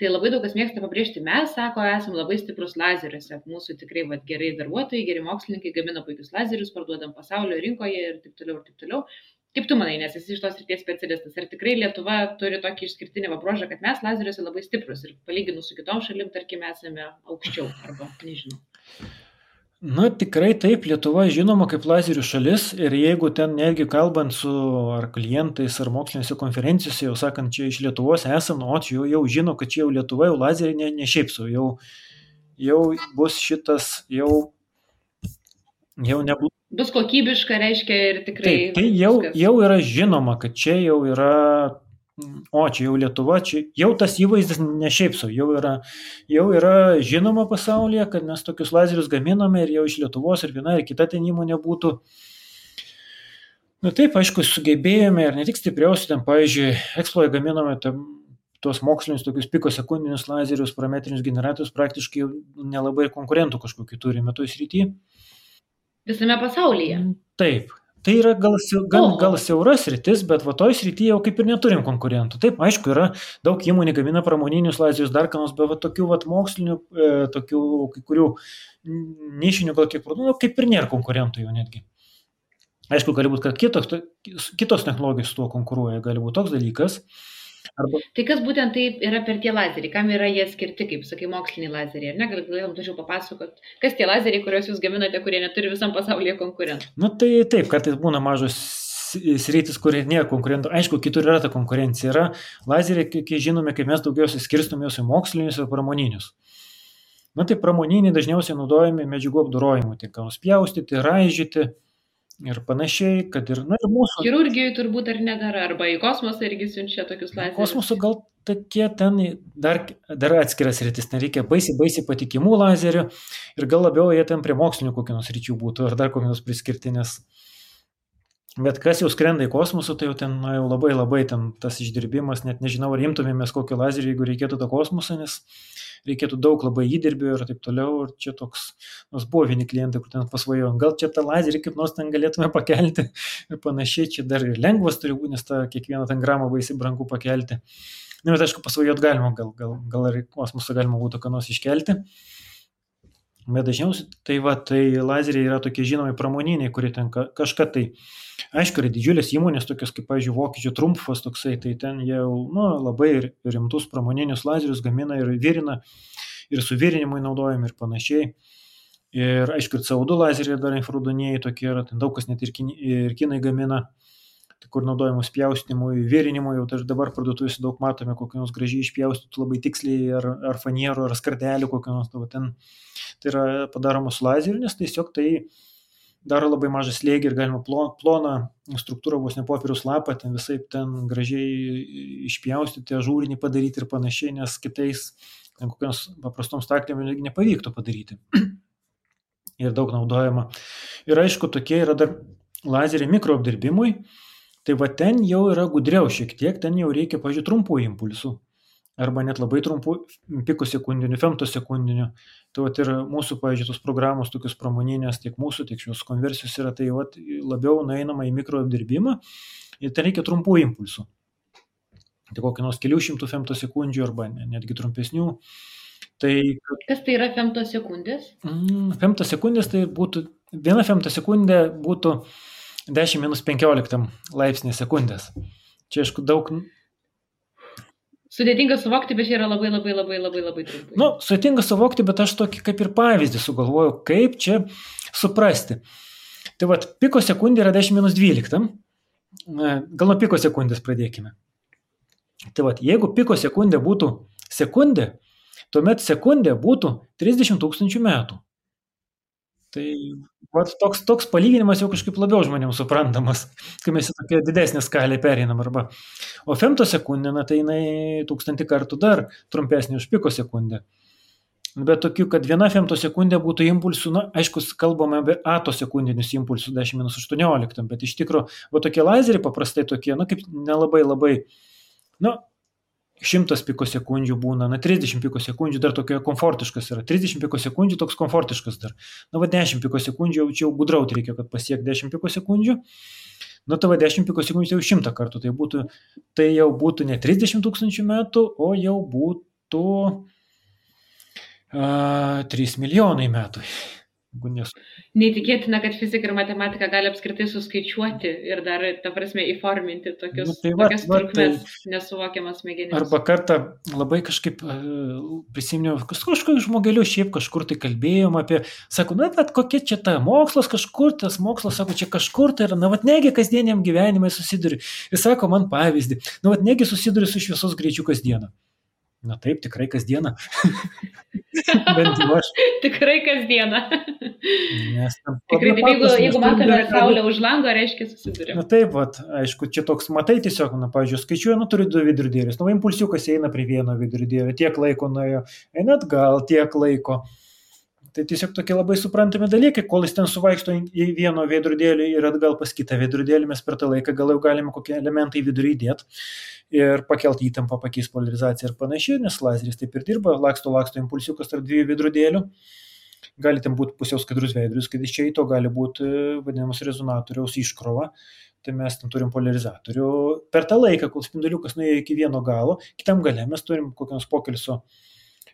tai labai daug kas mėgsta pabrėžti, mes, sako, esam labai stiprus lazeriuose, mūsų tikrai gerai darbuotojai, geri mokslininkai gamina puikius lazerius, parduodam pasaulio rinkoje ir taip toliau. Kaip tu manai, nes esi iš tos srities specialistas, ar tikrai Lietuva turi tokį išskirtinį bruožą, kad mes lazeriuose labai stiprus ir palyginus su kitom šalim, tarkim, esame aukščiau arba nežinau. Tikrai taip, Lietuva žinoma kaip lazerių šalis ir jeigu ten netgi kalbant su ar klientais ar mokslinėse konferencijose, jau sakant, čia iš Lietuvos esam, čia jau žino, kad čia jau Lietuva jau lazeriai ne šiaip sau, jau bus šitas, jau nebus. Bus kokybiška, reiškia ir tikrai. Taip, tai jau yra žinoma, kad čia jau yra O, čia jau Lietuva, čia jau tas įvaizdis ne šiaip sau, jau yra žinoma pasaulyje, kad mes tokius lazerius gaminame ir jau iš Lietuvos ir viena ir kita ten įmonė būtų. Na taip, aišku, sugebėjome ir ne tik stipriausi, ten, pavyzdžiui, Exploje gaminome tuos mokslinius tokius pikosekundinius lazerius, parametrinius generatorius, praktiškai jau nelabai konkurentų kažkokių turime toj srityje. Visame pasaulyje. Taip. Tai yra gal siauras sritis, bet va toj srityje jau kaip ir neturim konkurentų. Taip, aišku, yra daug įmonių gamina pramoninius lazerius, dar kanos, bet va tokių va mokslinių, tokių kai kurių nišinių gal kiek produktų, kaip ir nėra konkurentų jau netgi. Aišku, gali būti, kad kitos technologijos su tuo konkuruoja, gali būti toks dalykas. Tai kas būtent tai yra per tie lazeriai, kam yra jie skirti, kaip sakai, moksliniai lazeriai, ar ne? Galėtum tačiau papasakot, kas tie lazeriai, kuriuos jūs gaminate, kurie neturi visam pasaulyje konkurentų? Nu tai taip, kartais būna mažos sritis, kur nėra konkurentų. Aišku, kitur yra ta konkurencija. Yra lazeriai, kai žinome, kaip mes daugiausiai skirstom juos į mokslinius ir pramoninius. Na tai pramoniniai dažniausiai naudojami medžiagų apdorojimui, tai ką nuspjaustyti, raižyti ir panašiai, kad ir mūsų... Chirurgijoje turbūt ar nedara, arba į kosmosą irgi siunčia tokius lazerius. Kosmoso gal tokie ten dar atskiras rytis, nereikia baisiai patikimų lazerių ir gal labiau jie ten prie mokslinių kokių nors ryčių būtų ar dar kokių nors priskirti, nes bet kas jau skrenda į kosmosą, tai jau ten jau labai ten tas išdirbimas, net nežinau, ar imtumėmės kokį lazerį, jeigu reikėtų tą kosmosą, nes reikėtų daug labai įdirbio ir taip toliau, ir čia toks, nors buvo vieni klientai, kur ten pasvajojo, gal čia tą lazerį kaip nors ten galėtume pakelti ir panašiai, čia dar ir lengvas turi būti, nes tą kiekvieną ten gramą baisiai brangu pakelti. Na, bet aišku, pasvajot galima, gal ir kosmosą galima būtų ką nors iškelti. Bet dažniausiai tai lazeriai yra tokie žinomi pramoniniai, kurie ten kažką tai, aišku, yra didžiulės įmonės, tokios kaip, pavyzdžiui, vokiečių Trumpfas toksai, tai ten jau labai rimtus pramoninius lazerius gamina ir virina, ir su virinimui naudojami ir panašiai. Ir aišku, ir CO2 lazeriai dar infraraudoniniai tokie yra, ten daug kas net ir kinai gamina, kur naudojamus pjaustimui, virinimui, jau dabar parduotuvėse daug matome, kokią nors gražiai išpjaustytų labai tiksliai, ar fanierų, ar skardelių kokią nors, ten tai yra padaroma su lazeriu, nes tiesiog tai daro labai mažą slėgį ir galima ploną struktūrą, vos ne popieriaus lapą, ten visai ten gražiai išpjaustyti, ažūrinį padaryti ir panašiai, nes kitais ten kokiams paprastom staklėm nepavyktų padaryti. Ir daug naudojama. Ir aišku, tokie yra dar lazeriai mikroapdirbimui, tai va ten jau yra gudriau šiek tiek, ten jau reikia, pažiūrėjau, trumpų impulsų, arba net labai trumpų pikosekundinių, femtosekundinių. Tai va ir mūsų, pažiūrėjau, tos programos tokios pramoninės, tiek mūsų, tiek šios konversijos yra, tai va labiau nueinama į mikroapdirbimą ir ten reikia trumpų impulsų. Tai kokį nors kelių šimtų femtosekundžių arba netgi trumpesnių. Tai, kas tai yra femtosekundės? Femtosekundės tai būtų, viena femtosekundė būtų 10-15 laipsnį sekundės. Čia, aišku, daug... Sudėtinga suvokti, bet čia yra labai trumpai. Nu, sudėtinga suvokti, bet aš tokį kaip ir pavyzdį sugalvojau, kaip čia suprasti. Tai vat, pikosekundė yra 10-12. Gal nuo pikosekundės pradėkime. Tai vat, jeigu pikosekundė būtų sekundė, tuomet sekundė būtų 30 000 metų. Tai vat, toks palyginimas jau kažkaip labiau žmonėms suprantamas, kai mes į tokią didesnę skalę pereinam. Arba. O femtosekundė, tai jinai 1000 kartų dar trumpesnė už pikosekundę. Bet tokių, kad viena femtosekundė būtų impulsų, aišku, kalbame apie atosekundinius impulsus 10-18, bet iš tikrųjų, va tokie lazeriai paprastai tokie, kaip nelabai, 100 pikosekundžių būna, 30 pikosekundžių dar tokia komfortiškas yra, 30 pikosekundžių toks komfortiškas dar. 10 pikosekundžių jau gudrauti reikia, kad pasiek 10 pikosekundžių. Tai 10 pikosekundžių jau 100 kartų, tai jau būtų ne 30 000 metų, o jau būtų 3 milijonai metų. Neįtikėtina, kad fizika ir matematika gali apskritai suskaičiuoti ir dar, ta prasme, įforminti tokias trukmes nesuvokiamas smegenims. Arba kartą labai kažkaip prisiminiau, kažkokiu žmogeliu šiaip kažkur tai kalbėjom apie, sako, bet kokia čia ta mokslas kažkur, tas mokslas, sako, čia kažkur tai yra, negi kasdieniam gyvenimai susiduri. Ir sako man pavyzdį, negi susiduri su šviesos greičiu kasdieną. Na taip, tikrai kasdieną. Bent jau aš. Tikrai kasdieną. Nes Tikrai, jeigu matome saulę už lango, reiškia susidurime. Na taip, vat, aišku, čia toks, matai tiesiog, pavyzdžiui, skaičiuoju, turi 2 vidurdėlius. Impulsiukas eina prie vieno vidurdėlio, tiek laiko nuėjo, eina atgal, tiek laiko. Tai tiesiog tokie labai suprantami dalykai, kol jis ten suvaikšto į vieno veidrodėlį ir atgal pas kitą veidrodėlį, mes per tą laiką gal jau galime kokie elementai vidurį įdėti ir pakelti įtampą, pakeisti polarizaciją ir panašiai, nes lazeris taip ir dirba, laksto impulsiukas tarp 2 veidrodėlių, gali ten būti pusiau skaidrus veidrodis, kad iš čia į to gali būti vadinamas rezonatoriaus iškrova, tai mes ten turim polarizatorių. Per tą laiką, kol spinduliukas nuėjo iki vieno galo, kitam gale mes turim kokios pokelso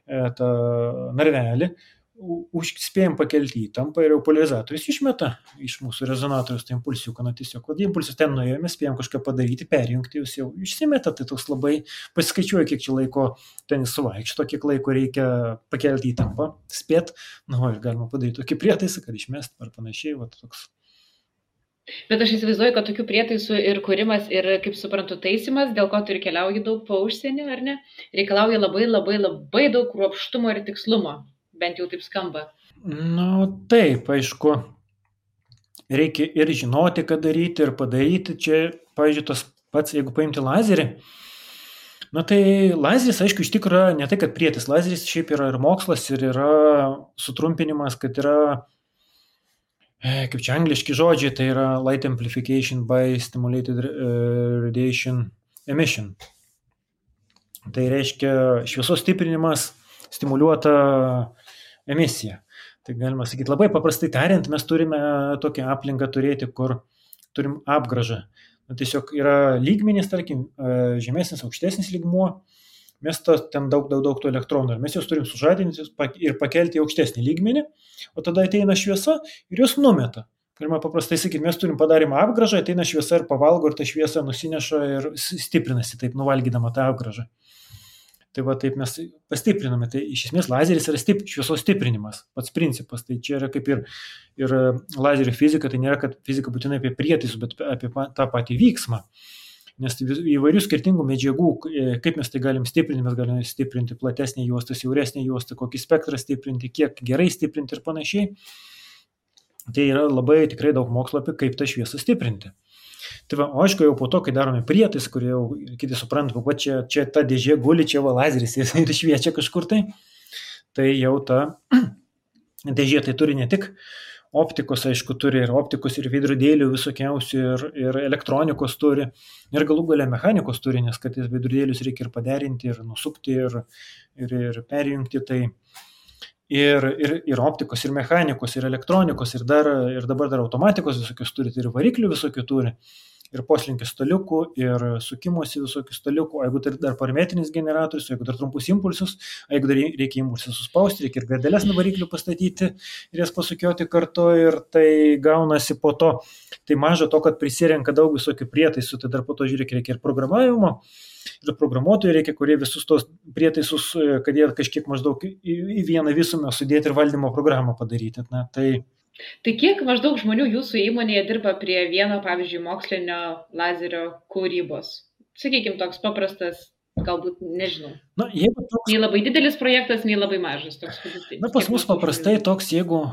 narvelį, spėjom pakelti įtampą ir jau polarizatorius išmeta iš mūsų rezonatorius tą impulsiuką, tiesiog, kad impulsus ten nuėjo, mes spėjom kažką padaryti, perjungti, jūs jau išsimeta, tai toks labai pasiskaičiuoja, kiek čia laiko ten suvaikšto, kiek laiko reikia pakelti įtampą, spėt, ir galima padaryti tokį prietaisą, kad išmest ar panašiai, toks. Bet aš įsivaizduoju, kad tokių prietaisų ir kūrimas ir, kaip suprantu, taisimas, dėl ko tu ir keliauji daug po užsienį, ar ne, reikalauja labai, labai, labai daug kruopštumo ir tikslumo. Bent jau taip skamba. Taip, aišku, reikia ir žinoti, ką daryti, ir padaryti. Čia, pavyzdžiui, tas pats, jeigu paimti lazerį, tai lazeris, aišku, iš tikrųjų ne tai, kad prietis. Lazeris šiaip yra ir mokslas, ir yra sutrumpinimas, kad yra, kaip čia angliški žodžiai, tai yra light amplification by stimulated radiation emission. Tai reiškia šviesos stiprinimas stimuliuota emisija. Tai galima sakyti, labai paprastai tariant, mes turime tokią aplinką turėti, kur turim apgrąžą. Tiesiog yra lygmenys, tarkim, žemesnis, aukštesnis lygmuo, mes ten daug tų elektronų, ir mes juos turim sužadinti ir pakelti į aukštesnį lygmenį, o tada ateina šviesa ir juos numeta. Galima paprastai sakyti, mes turim padarymą apgrąžą, ateina šviesa ir pavalgo, ir ta šviesa nusineša ir stiprinasi, taip nuvalgydama tą apgrąžą. Tai taip mes pastipriname. Tai iš esmės lazeris yra šviesos stiprinimas, pats principas. Tai čia yra kaip ir lazerio fizika, tai nėra, kad fizika būtinai apie prietaisus, bet apie tą patį vyksmą. Nes įvairių skirtingų medžiagų, kaip mes tai galim stiprinti, mes galime stiprinti platesnį juostą, siauresnį juostą, kokį spektrą stiprinti, kiek gerai stiprinti ir panašiai. Tai yra labai tikrai daug mokslo apie kaip tą šviesą stiprinti. Tai o aišku, jau po to, kai darome prietais, kurie jau kiti supranta, čia ta dėžė guli, čia lazeris ir šviečia kažkur tai jau ta dėžė tai turi ne tik optikos, aišku, turi ir optikos, ir veidrodėlių visokiausių, ir elektronikos turi, ir galų gale mechanikos turi, nes kad veidrodėlius reikia ir paderinti, ir nusukti, ir perjungti, tai ir optikos, ir mechanikos, ir elektronikos, ir dabar dar automatikos visokius turi, ir variklių visokių turi, ir poslinkio staliukų, ir sukimosi visokių staliukų, jeigu tai dar parametrinis generatorius, jeigu dar trumpus impulsus, jeigu dar reikia impulsus suspausti, reikia ir gardeles nuo variklių pastatyti ir jas pasukioti kartu, ir tai gaunasi po to, tai maža to, kad prisirenka daug visokių prietaisų, tai dar po to reikia ir programavimo, ir programuotojų reikia, kurie visus tos prietaisus, kad jie kažkiek maždaug į vieną visumą sudėti ir valdymo programą padaryti. Tai kiek maždaug žmonių jūsų įmonėje dirba prie vieno, pavyzdžiui, mokslinio lazerio kūrybos? Sakykime, toks paprastas, galbūt, nežinau. Nei labai didelis projektas, nei labai mažas. Pas mus paprastai toks, jeigu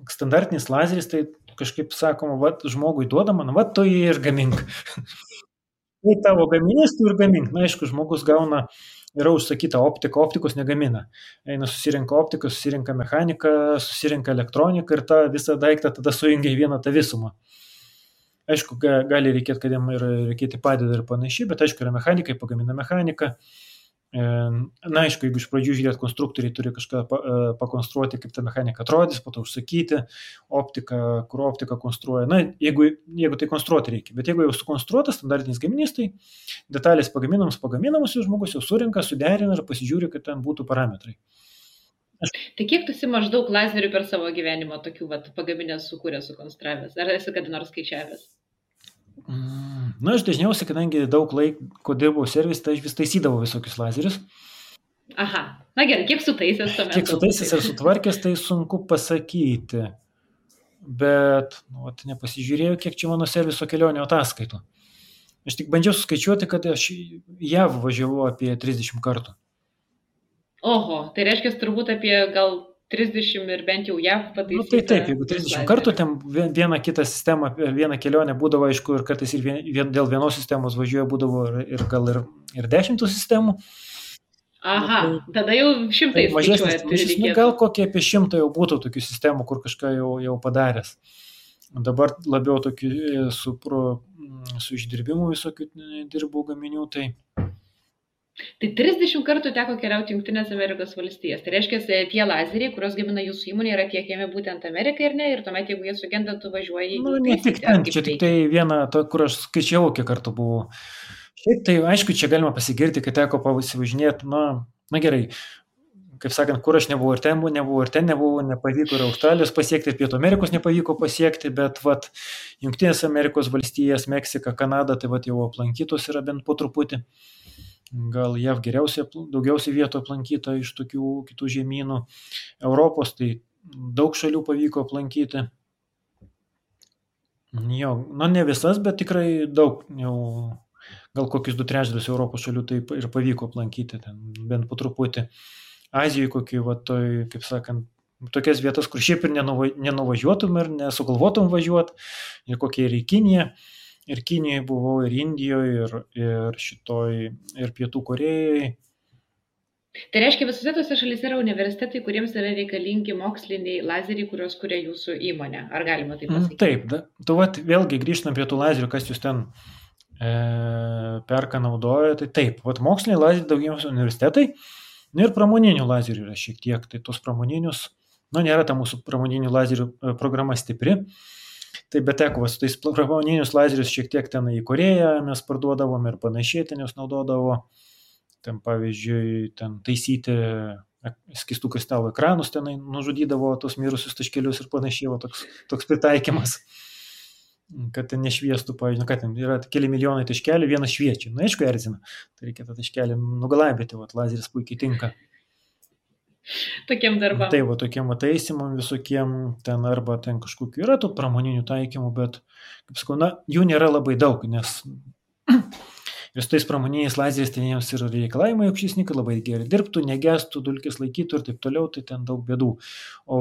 standartinis lazeris, tai kažkaip sakoma, žmogui duodama, tu jį ir gamink. Tai tavo gaminys, tu ir gamink. Aišku, žmogus gauna, yra užsakyta optika, optikos negamina. Eina susirenka optiką, susirenka mechaniką, susirenka elektroniką ir tą visą daiktą tada sujungia į vieną tą visumą. Aišku, gali reikėti, kad jam ir reikėti padeda ir panašiai, bet aišku, yra mechanikai, pagamina mechaniką. Aišku, jeigu iš pradžių žiūrėt, konstruktoriai turi kažką pakonstruoti, kaip ta mechanika atrodys, po to užsakyti optiką, kur optiką konstruoja. Jeigu tai konstruoti reikia, bet jeigu jau sukonstruotas standartinis gaminys, tai detalės pagaminamos ir žmogus jau surinka, suderina ir pasižiūri, kad ten būtų parametrai. Tai kiek tu esi maždaug lazerių per savo gyvenimą tokių pagaminęs, sukūręs, sukonstravęs? Ar esi kada nors skaičiavęs? Aš dažniausiai, kadangi daug laiko dirbau servis, tai aš vis taisydavau visokius lazerius. Aha, gerai, kiek sutaisęs tuomet? Kiek sutaisęs ir sutvarkęs, tai sunku pasakyti. Bet, nepasižiūrėjau, kiek čia mano serviso kelionio ataskaitų. Aš tik bandžiau suskaičiuoti, kad aš JAV važiavau apie 30 kartų. Oho, tai reiškia turbūt apie gal 30 ir bent jau JAV Nu, tai pataisyta taip, jeigu vis 30 kartų, lazerių. ten vieną kitą sistemą, vieną kelionę būdavo, aišku, ir kartais ir dėl vienos sistemos važiuoja būdavo ir gal ir 10 sistemų. Nu, Aha, tai, tada jau tai šimtais mažesnis skaičiuojat ryšys, nu, gal reikėtų. kokie apie 100 jau būtų tokių sistemų, kur kažką jau padaręs. Dabar labiau tokių su išdirbimu visokių dirbau gaminių, tai Tai 30 kartų teko keliauti Junktinės Amerikos valstijas. Tai reiškia, tie lazeriai, kuriuos gamina jūsų įmonė, yra tiekiami būtent Amerikai ir ne, ir tuomet, jeigu jie sugenda, tu važiuoji nu, jų ne tik taisyti, ar ten, kaip čia tik veikia. tai viena, kur aš skaičiavau, kiek kartų buvau. Šiaip tai, aišku, čia galima pasigirti, kad teko pasivažinėti, na gerai, kaip sakant, kur aš nebuvau ir ten nebuvau, nepavyko ir Australijos pasiekti, ir Pietų Amerikos nepavyko pasiekti, bet vat Junktinės Amerikos valstijas, Meksika, Kanada, tai vat jau aplankytos yra bent po truputį. Gal JAV daugiausiai vietų aplankyta iš tokių kitų žemynų. Europos tai daug šalių pavyko aplankyti. Jo, ne visas, bet tikrai daug, jau gal kokius 2/3 Europos šalių tai ir pavyko aplankyti, ten bent po truputį. Azijoje kokį, va, toj, kaip sakant, tokias vietas, kur šiaip ir nenuvažiuotum ir nesugalvotum važiuoti, ir kokie ir į Kiniją. Ir Kinijoje buvau, ir Indijoje, ir Pietų Korėjoje. Tai reiškia, visose tose šalyse yra universitetai, kuriems yra reikalingi moksliniai lazeriai, kuriuos kuria jūsų įmonė. Ar galima taip pasakyti? Taip, tu vat vėlgi grįžtam prie tų lazerių, kas jūs ten perka naudoja, tai taip, vat moksliniai lazeriai daugiausiai universitetai, ir pramoninių lazerių yra šiek tiek, tai tos pramoninius, nėra ta mūsų pramoninių lazerių programa stipri, tai bet teko, su tais pramoninius lazerius šiek tiek ten į Koreją mes parduodavom ir panašiai ten jos naudodavo, ten pavyzdžiui, ten taisyti skystų kristalų ekranus, tenai nužudydavo tos mirusius taškelius ir panašiai, toks pritaikymas, kad ten nešviestų, pavyzdžiui, kad ten yra keli milijonai taškelių, vienas šviečia, aišku, erzina, tai reikia tą taškelį nugalabyti, lazeris puikiai tinka. Tokiem darbam. Tai tokiem taisimam visokiem, ten arba ten kažkokiu yra tų pramoninių taikymų, bet, kaip sakau, jų nėra labai daug, nes ir su tais pramoniniais lazeriais ten jiems yra reikalavimai aukštesni, kad labai gerai dirbtų, negestų, dulkės laikytų ir taip toliau, tai ten daug bėdų. O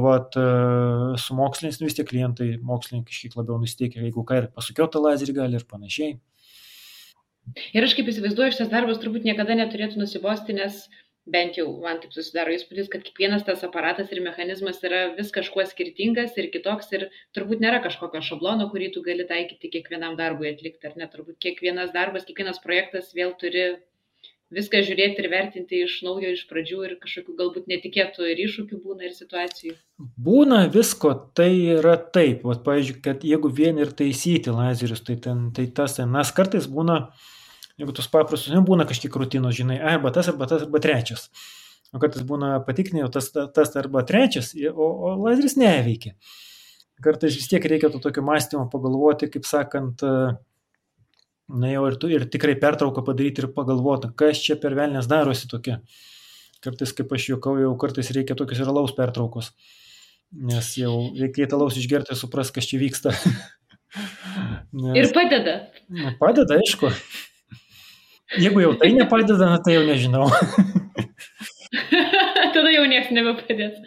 su moksliniais vis tiek klientai, mokslininkai kažkiek labiau nusiteikia, jeigu ką ir pasukiotą lazerį gali ir panašiai. Ir aš kaip įsivaizduoju, šitas darbas turbūt niekada neturėtų nusibosti, nes bent jau man taip susidaro įspūdis, kad kiekvienas tas aparatas ir mechanizmas yra vis kažkuo skirtingas ir kitoks ir turbūt nėra kažkokio šablono, kurį tu gali taikyti kiekvienam darbui atlikti, ar ne? Turbūt kiekvienas darbas, kiekvienas projektas vėl turi viską žiūrėti ir vertinti iš naujo, iš pradžių ir kažkokių galbūt netikėtų ir iššūkių būna ir situacijų. Būna visko, tai yra taip, pavyzdžiui, kad jeigu vien ir taisyti lazerius, tai tas kartais būna, jeigu tus paprastus, nebūna kažkiek rutinos, žinai, arba tas, arba trečias. O kartais būna patikrinė, tas arba trečias, o lazeris neveikia. Kartais vis tiek reikia to tokio mąstymo pagalvoti, kaip sakant, jau ir tikrai pertrauką padaryti ir pagalvoti, kas čia per velnės darosi tokia. Kartais, kaip aš juokauju, kartais reikia tokios ir alaus pertraukos, nes jau reikia alaus išgerti ir supras, kas čia vyksta. Ir padeda. Padeda, aišku. Jeigu jau tai nepadeda, tai jau nežinau. Tada jau nieks nebepadės.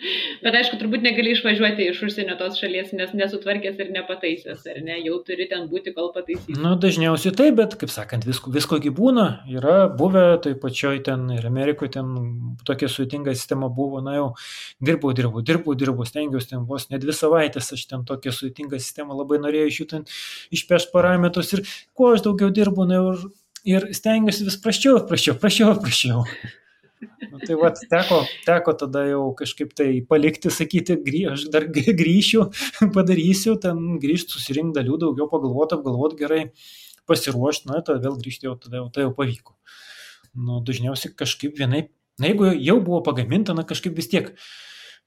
Bet aišku, turbūt negali išvažiuoti iš užsienio tos šalies, nes nesutvarkęs ir nepataisęs, ar ne? Jau turi ten būti, kol pataisys. Dažniausiai taip, bet, kaip sakant, viskogi būna. Yra buvę, tai pačioj ten ir Amerikoje ten tokia sudėtinga sistema buvo, jau dirbau, stengiausi ten vos ne 2 savaitės, aš ten tokia sudėtinga sistema labai norėjau iš jų ten išpešti parametrus ir kuo aš daugiau dirbu, ir stengiuosi vis praščiau. Tai teko tada jau kažkaip tai palikti, sakyti, aš dar grįšiu, padarysiu, ten grįžti, susirinkti dalių, daugiau apgalvoti gerai, pasiruošti, tada vėl grįžti, tada jau pavyko. Dažniausiai kažkaip vienaip, jeigu jau buvo pagaminta, kažkaip vis tiek.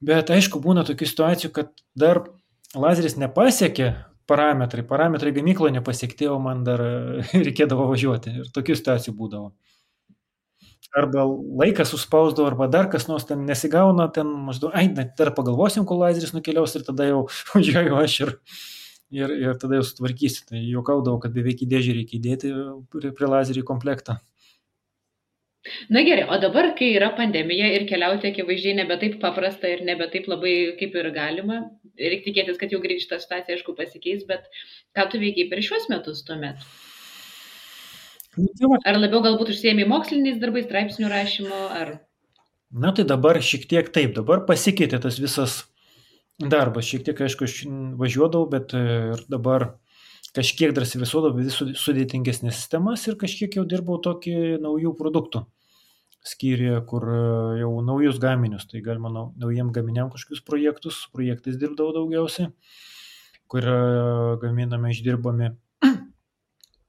Bet aišku, būna tokių situacijų, kad dar lazeris nepasiekė parametrai gamykloje nepasiekti, o man dar reikėdavo važiuoti. Ir tokių situacijų būdavo. Arba laikas suspausdavo, arba dar kas nors ten nesigauna, ten maždaug, dar pagalvosim, kol lazeris nukeliaus ir tada jau važiuoju aš ir tada jau sutvarkysiu. Tai juokaudavau, kad beveik į dėžį reikia įdėti prie lazerį komplektą. Na gerai, o dabar, kai yra pandemija ir keliauti akivaizdžiai nebe taip paprasta ir nebe taip labai kaip ir galima, reikia tikėtis, kad jau greit šitą situaciją, aišku, pasikeis, bet ką tu veikiai per šiuos metus tuomet? Nu, tai va. Ar labiau galbūt užsiėmė moksliniais darbais, straipsnių rašymo, ar... Na tai dabar šiek tiek taip, dabar pasikeitė tas visas darbas, šiek tiek, aišku, aš važiuodavau, bet ir dabar kažkiek dar visuodavau vis sudėtingesnės sistemas ir kažkiek jau dirbau tokį naujų produktų skyriuje, kur jau naujus gaminius, tai galima naujiem gaminiam kažkokius projektais dirbdavau daugiausiai, kur gaminame, išdirbami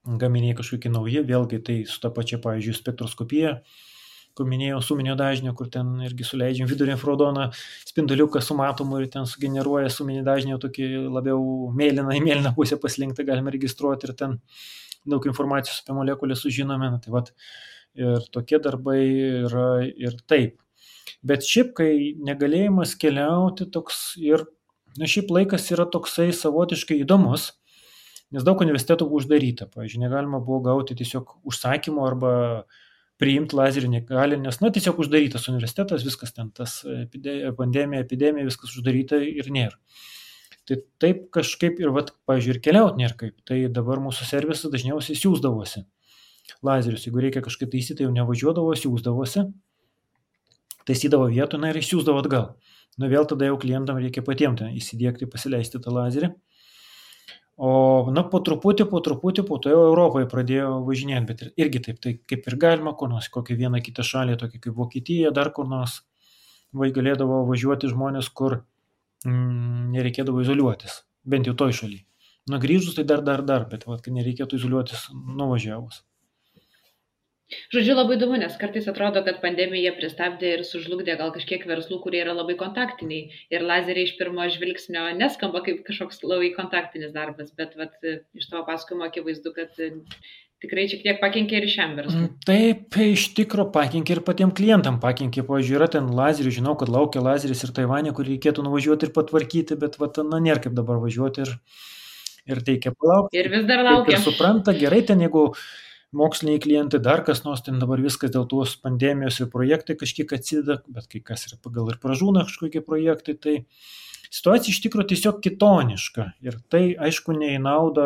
gaminiai kažkokie nauji, vėlgi tai su ta pačia, pavyzdžiui, spektroskopija, kur minėjau, suminio dažnio, kur ten irgi suleidžiam vidurio infrarodoną spinduliuką su matomu ir ten sugeneruoja suminį dažnį tokį labiau mėlyną į mėlyną pusę paslinktą, galime registruoti ir ten daug informacijos apie molekulę sužinome. Tai vat, ir tokie darbai yra ir taip. Bet šiaip, kai negalėjimas keliauti toks ir, na šiaip laikas yra toksai savotiškai įdomus, nes daug universitetų buvo uždaryta. Pavyzdžiui, negalima buvo gauti tiesiog užsakymų arba priimti lazerį negali, nes, na, tiesiog uždarytas universitetas, viskas ten, tas pandemija, epidemija, viskas uždaryta ir nėra. Tai taip kažkaip ir, vat, pavyzdžiui, ir keliauti nėra kaip. Tai dabar mūsų servisas dažniausiai siūsdavosi lazerius. Jeigu reikia kažkaip taisyti, jau nevažiuodavo, siūsdavosi, taisydavo vietą, na ir išsiūsdavo atgal. Na vėl tada jau klientam reikia patiems įsidėkti, pasileisti tą lazerį. O, na, po truputį, po to jau Europoje pradėjo važinėti, bet irgi taip, tai kaip ir galima, kur nors, kokią vieną kitą šalį, tokia kaip Vokietija, dar kur nors, galėdavo važiuoti žmonės, kur nereikėdavo izoliuotis, bent jau toj šaly. Na, grįžus tai dar, bet vat, nereikėtų izoliuotis nuvažiavus. Žodžiu, labai įdomu, nes kartais atrodo, kad pandemija pristabdė ir sužlugdė gal kažkiek verslų, kurie yra labai kontaktiniai. Ir lazeriai iš pirmo žvilgsnio neskamba kaip kažkoks labai kontaktinis darbas, bet vat, iš tavo pasakojimo akivaizdu, kad tikrai šiek tiek pakenkė ir šiam verslui. Taip, iš tikro pakenkė ir patiem klientam pakenkė. Pavyzdžiui, yra ten lazerių, žinau, kad laukia lazeris ir Taivane, kur reikėtų nuvažiuoti ir patvarkyti, bet vat, na, nėra kaip dabar važiuoti ir reikia palaukti. Ir vis dar laukia. Ir supranta, gerai ten, jeigu moksliniai klientai, dar kas nors, ten dabar viskas dėl tos pandemijos ir projektai kažkiek atsideda, bet kai kas yra pagal ir pražūna kažkokie projektai, tai situacija iš tikrųjų tiesiog kitoniška. Ir tai, aišku, ne į naudą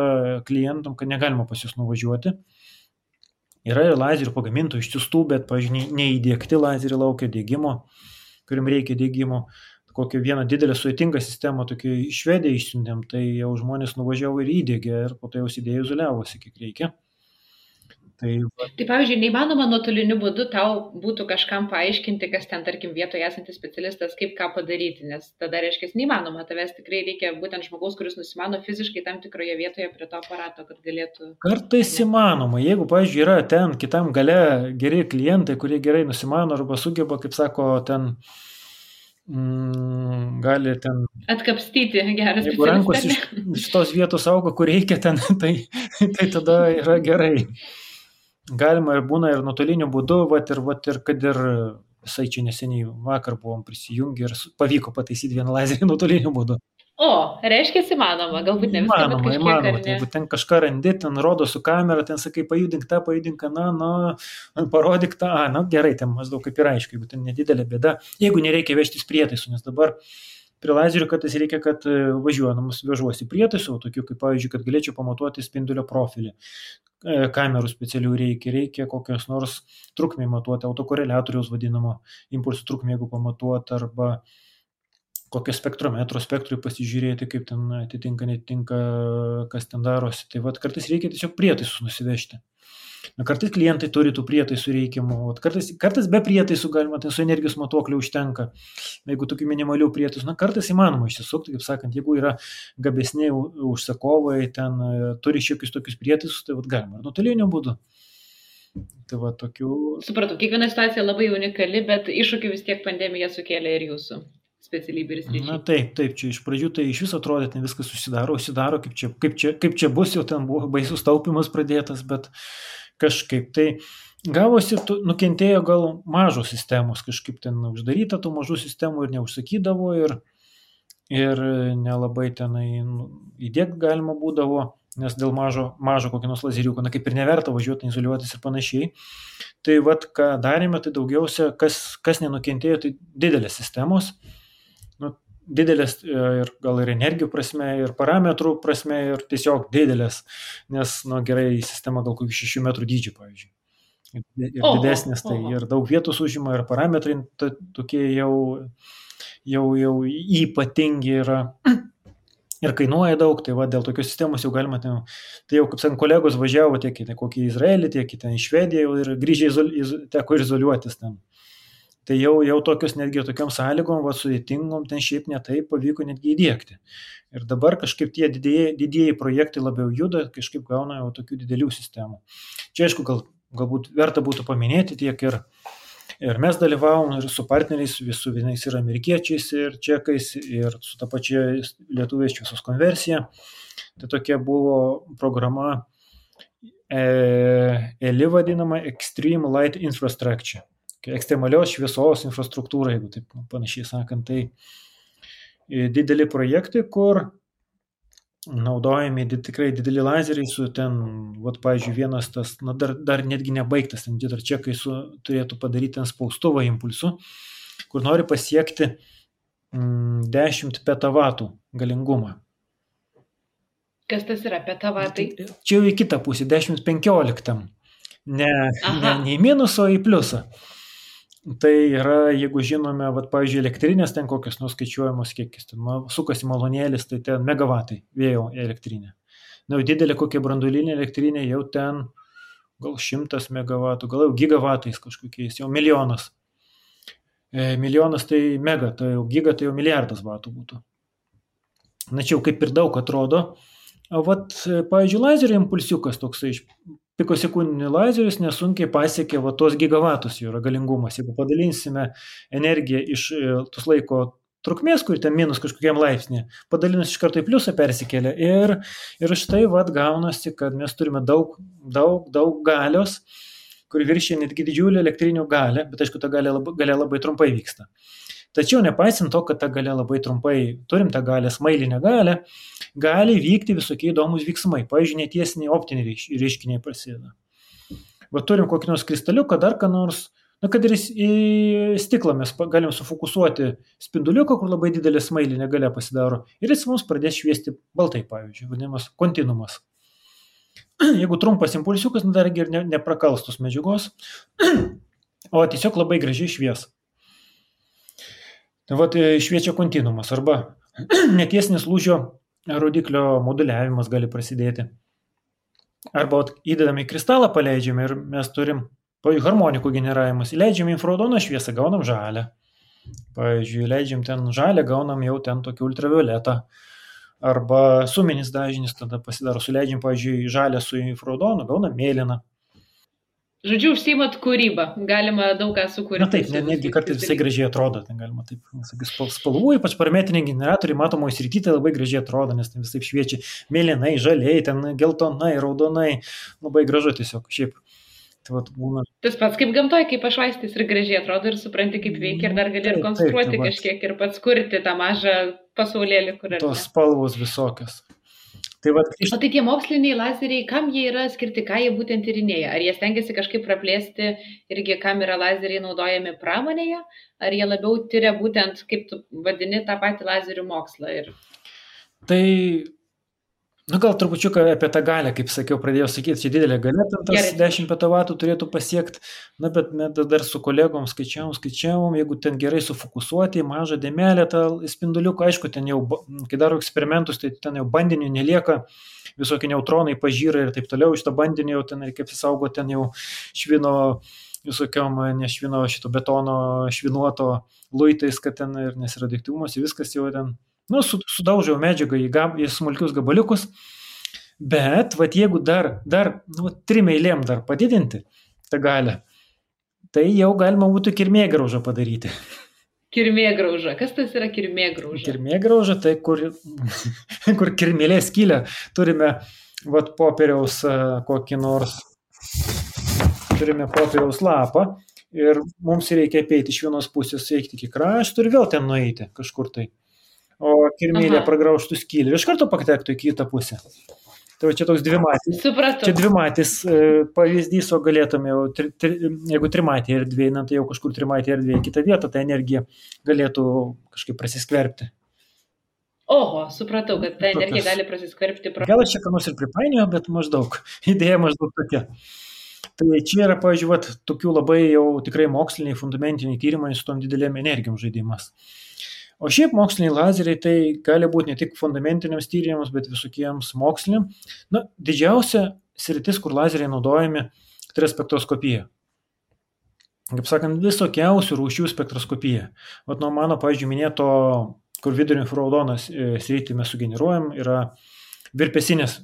klientam, kad negalima pas jūs nuvažiuoti. Yra ir lazerių pagamintų išsiųstų, bet, pavyzdžiui, neįdėkti lazerį laukia dėgymo, kuriam reikia dėgymo. Kokią vieną didelę sudėtingą sistemą tokį iš Švediją išsiuntėm, tai jau žmonės nuvažiavo ir įdėgė ir po to jau įdėjo izoliavosi, kiek reikia. Tai, pavyzdžiui, neįmanoma nuotoliniu būdu tau būtų kažkam paaiškinti, kas ten, tarkim, vietoje esantis specialistas, kaip ką padaryti, nes tada reiškia, neįmanoma, tavęs tikrai reikia būtent žmogaus, kuris nusimano fiziškai tam tikroje vietoje prie to aparato, kad galėtų... Kartais įmanoma, jeigu, pavyzdžiui, yra ten kitam gale geri klientai, kurie gerai nusimano arba sugeba, kaip sako, ten gali ten... Atkapstyti geras specialistas. Jeigu rankos iš tos vietos auga, kur reikia ten, tai tada yra gerai. Galima ir būna ir nuotoliniu būdu, ir kad ir visai čia neseniai vakar buvom prisijungę ir pavyko pataisyti vieną lazerį nuotoliniu būdu. O, reiškia įmanoma, galbūt ne viską, bet kažkiek ar ne. Jeigu ten kažką randi, ten rodo su kamera, ten sakai, pajudink tą, parodyk tą, gerai, ten maždaug kaip ir aišku, jeigu ten nedidelė bėda, jeigu nereikia vežtis prietaisų, nes dabar prie lazerių kartais reikia, kad važiuodamas vežuosi prietaisų, tokių kaip, pavyzdžiui, kad galėčiau pamatuoti spindulio profilį. Kamerų specialių reikia kokios nors trukmė matuoti, autokoreliatoriaus vadinamo impulsų trukmė, jeigu pamatuoti, arba kokio spektrometro spektrui pasižiūrėti, kaip ten atitinka, netinka, kas ten darosi. Tai vat kartais reikia tiesiog prietaisus nusivežti. Kartais klientai turi tų prietaisų reikiamų, kartais be prietaisų galima, tai su energijos matuokliu užtenka, jeigu tokių minimalių prietaisų, kartais įmanoma išsisukti, kaip sakant, jeigu yra gabesniai užsakovai, ten turi šiokius tokius prietaisus, tai galima ir nuotoliniu būdu. Tai tokių... Supratau, kiekviena situacija labai unikali, bet iššūkių vis tiek pandemija sukėlė ir jūsų specialybė ir sričiai. Na taip, čia iš pradžių tai iš viso atrodė, ten viskas užsidaro, kaip čia bus, jau ten buvo baisus taupimas pradėtas, bet kažkaip tai gavosi, nukentėjo gal mažos sistemos, kažkaip ten uždaryta tų mažų sistemų ir neužsakydavo ir nelabai tenai įdėkti galima būdavo. nes dėl mažo kokio nors lazeriuko, kaip ir neverta važiuoti, izoliuotis ir panašiai. Tai ką darėme, tai daugiausia, kas nenukentėjo, tai didelės sistemos, didelės ir gal ir energijų prasme, ir parametrų prasme, ir tiesiog didelės, nes, gerai, sistema gal kokių 6 metrų dydžio, pavyzdžiui. Ir didesnės, tai ir daug vietos užima, ir parametrai tokie jau ypatingi yra ir kainuoja daug, tai dėl tokios sistemos jau galima, tai jau, kaip sakant, kolegos važiavo tiek į kokį Izraelį, tiek į Švediją ir grįžę teko izoliuotis ten. Tai jau tokios netgi tokiom sąlygom, sudėtingom, ten šiaip netai pavyko netgi įdėkti. Ir dabar kažkaip tie didieji projektai labiau juda, kažkaip gauna jau tokių didelių sistemų. Čia aišku, galbūt verta būtų paminėti tiek ir mes dalyvavom ir su partneriais, su vienais ir amerikiečiais, ir čekais, ir su ta pačia lietuviais šviesos konversija. Tai tokia buvo programa ELI vadinama Extreme Light Infrastructure. Ekstremalios šviesos infrastruktūra, jeigu taip panašiai sakant, tai dideli projektai, kur naudojami tikrai dideli lazeriai su ten, pavyzdžiui, vienas tas, dar netgi nebaigtas, ten dar čekai turėtų padaryti ten spaustuvą impulsų, kur nori pasiekti 10 petavatų galingumą. Kas tas yra petavatai? Čia jau į kitą pusę, 10-15. Ne į minusą, o į pliusą. Tai yra, jeigu žinome, pavyzdžiui, elektrinės ten kokios nuskaičiuojamos kiekis, ten sukasi malonėlis, tai ten megavatai vėjo elektrinė. Jau didelė kokia branduolinė elektrinė, jau ten gal 100 megavatų, gal jau gigavatais kažkokiais, jau milijonas. Milijonas tai mega, tai jau giga, tai jau milijardas vatų būtų. Na čia jau kaip ir daug atrodo. Pavyzdžiui, lazerio impulsiukas toksai pikosekundinį lazerius nesunkiai pasiekia tos gigavatus jų yra galingumas. Jeigu padalinsime energiją iš tos laiko trukmės, kur ten minus kažkokiam laipsnį, padalinus iš karto į pliusą persikelia. Ir štai gaunasi, kad mes turime daug galios, kur viršia netgi didžiulį elektrinių galę, bet aišku, ta galia labai trumpai vyksta. Tačiau nepaisant to, kad ta galia labai trumpai, turim tą galę, smailinę galę, gali vykti visokie įdomus veiksmai. Pavyzdžiui, netiesiniai optiniai reiškiniai prasideda. Turim kokį nors kristaliuką, dar ką nors, kad ir į stiklą mes galim sufokusuoti spinduliuką, kur labai didelė smailinė galia pasidaro, ir jis mums pradės šviesti baltai, pavyzdžiui, vadinamas kontinuumas. Jeigu trumpas impulsiukas, dargi ir neprakals tos medžiagos, o tiesiog labai gražiai švies. Šviečia kontinuumas, arba netiesinis lūžio rodiklio moduliavimas gali prasidėti. Arba įdedame į kristalą, paleidžiame ir mes turim, pavyzdžiui, harmonikų generavimas, įleidžiame infraraudoną šviesą, gaunam žalę. Pavyzdžiui, įleidžiam ten žalę, gaunam jau ten tokį ultravioletą. Arba suminis dažnis tada pasidaro, suleidžiam, pavyzdžiui, žalę su infraraudonu, gaunam mėlyną. Žodžiu, užsiimat kūrybą, galima daug ką sukurti. Na taip, netgi kartais visai gražiai atrodo, ten galima taip, spalvų, ypač parametriniai generatoriai matomoje srityje tai labai gražiai atrodo, nes ten visai šviečia mėlynai, žaliai, ten geltonai, raudonai, labai gražu tiesiog, šiaip. Tai būna. Tas pats kaip gamtoje, kaip pašvaistis ir gražiai atrodo ir supranti, kaip veikia ir dar gali ir konstruoti kažkiek ir pats kurti tą mažą pasaulėlį, kur yra. Tos spalvos visokios. O tai tie moksliniai lazeriai, kam jie yra skirti, ką jie būtent tyrinėja? Ar jie stengiasi kažkaip praplėsti irgi, kam yra lazeriai naudojami pramonėje? Ar jie labiau tyria būtent, kaip tu vadini, tą patį lazerių mokslą? Tai, gal trupučiuką apie tą galę, kaip sakiau, pradėjau sakyti, čia didelė galia, tas 10 petavatų turėtų pasiekti, bet mes dar su kolegom skaičiavom, jeigu ten gerai sufokusuoti, mažą dėmelę tą spinduliuką, aišku, ten jau, kai daro eksperimentus, tai ten jau bandinių nelieka, visokie neutronai pažyra ir taip toliau, iš to bandinio jau ten reikia apsisaugoti, ten jau švino visokiom, nešvino šito betono švinuoto luitais, kad ten ir nesiradioaktyvumas, viskas jau ten sudaužiau medžiagą į smulkius gabaliukus, bet jeigu dar 3 eilėm dar padidinti tą galę, tai jau galima būtų kirmėgraužą padaryti. Kirmėgrauža. Kas tas yra kirmėgrauža? Kirmėgrauža, tai kur kirmėlė skylė. Turime popieriaus kokį nors, turime popieriaus lapą ir mums reikia apeiti iš vienos pusės, eiti iki krašto ir vėl ten nueiti kažkur tai. O kirmėlė pragraužtų skylę ir iš karto patektų į kitą pusę. Tai va čia toks dvimatis. Supratau. Čia dvimatis pavyzdys, o galėtume jau, jeigu trimatė erdvė, tai jau kažkur trimatė erdvė į kitą vietą, ta energija galėtų kažkaip prasiskverbti. Oho, supratau, kad ta energija gali prasiskverbti. Gal aš čia ką nors ir pripainioju, bet maždaug, idėja maždaug tokia. Tai čia yra, pažiūrėt, tokių labai jau tikrai moksliniai, fundamentiniai tyrimai su tom didelėm energijom žaidimas. O šiaip moksliniai lazeriai tai gali būti ne tik fundamentiniams tyrimams, bet visokiems moksliniam. Na, didžiausia sritis, kur lazeriai naudojami, tai yra spektroskopija. Kaip sakant, visokiausių rūšių spektroskopija. Vat nuo mano, pavyzdžiui, minėto, kur vidurio infraraudonas sritį mes sugeneruojam, yra virpesinės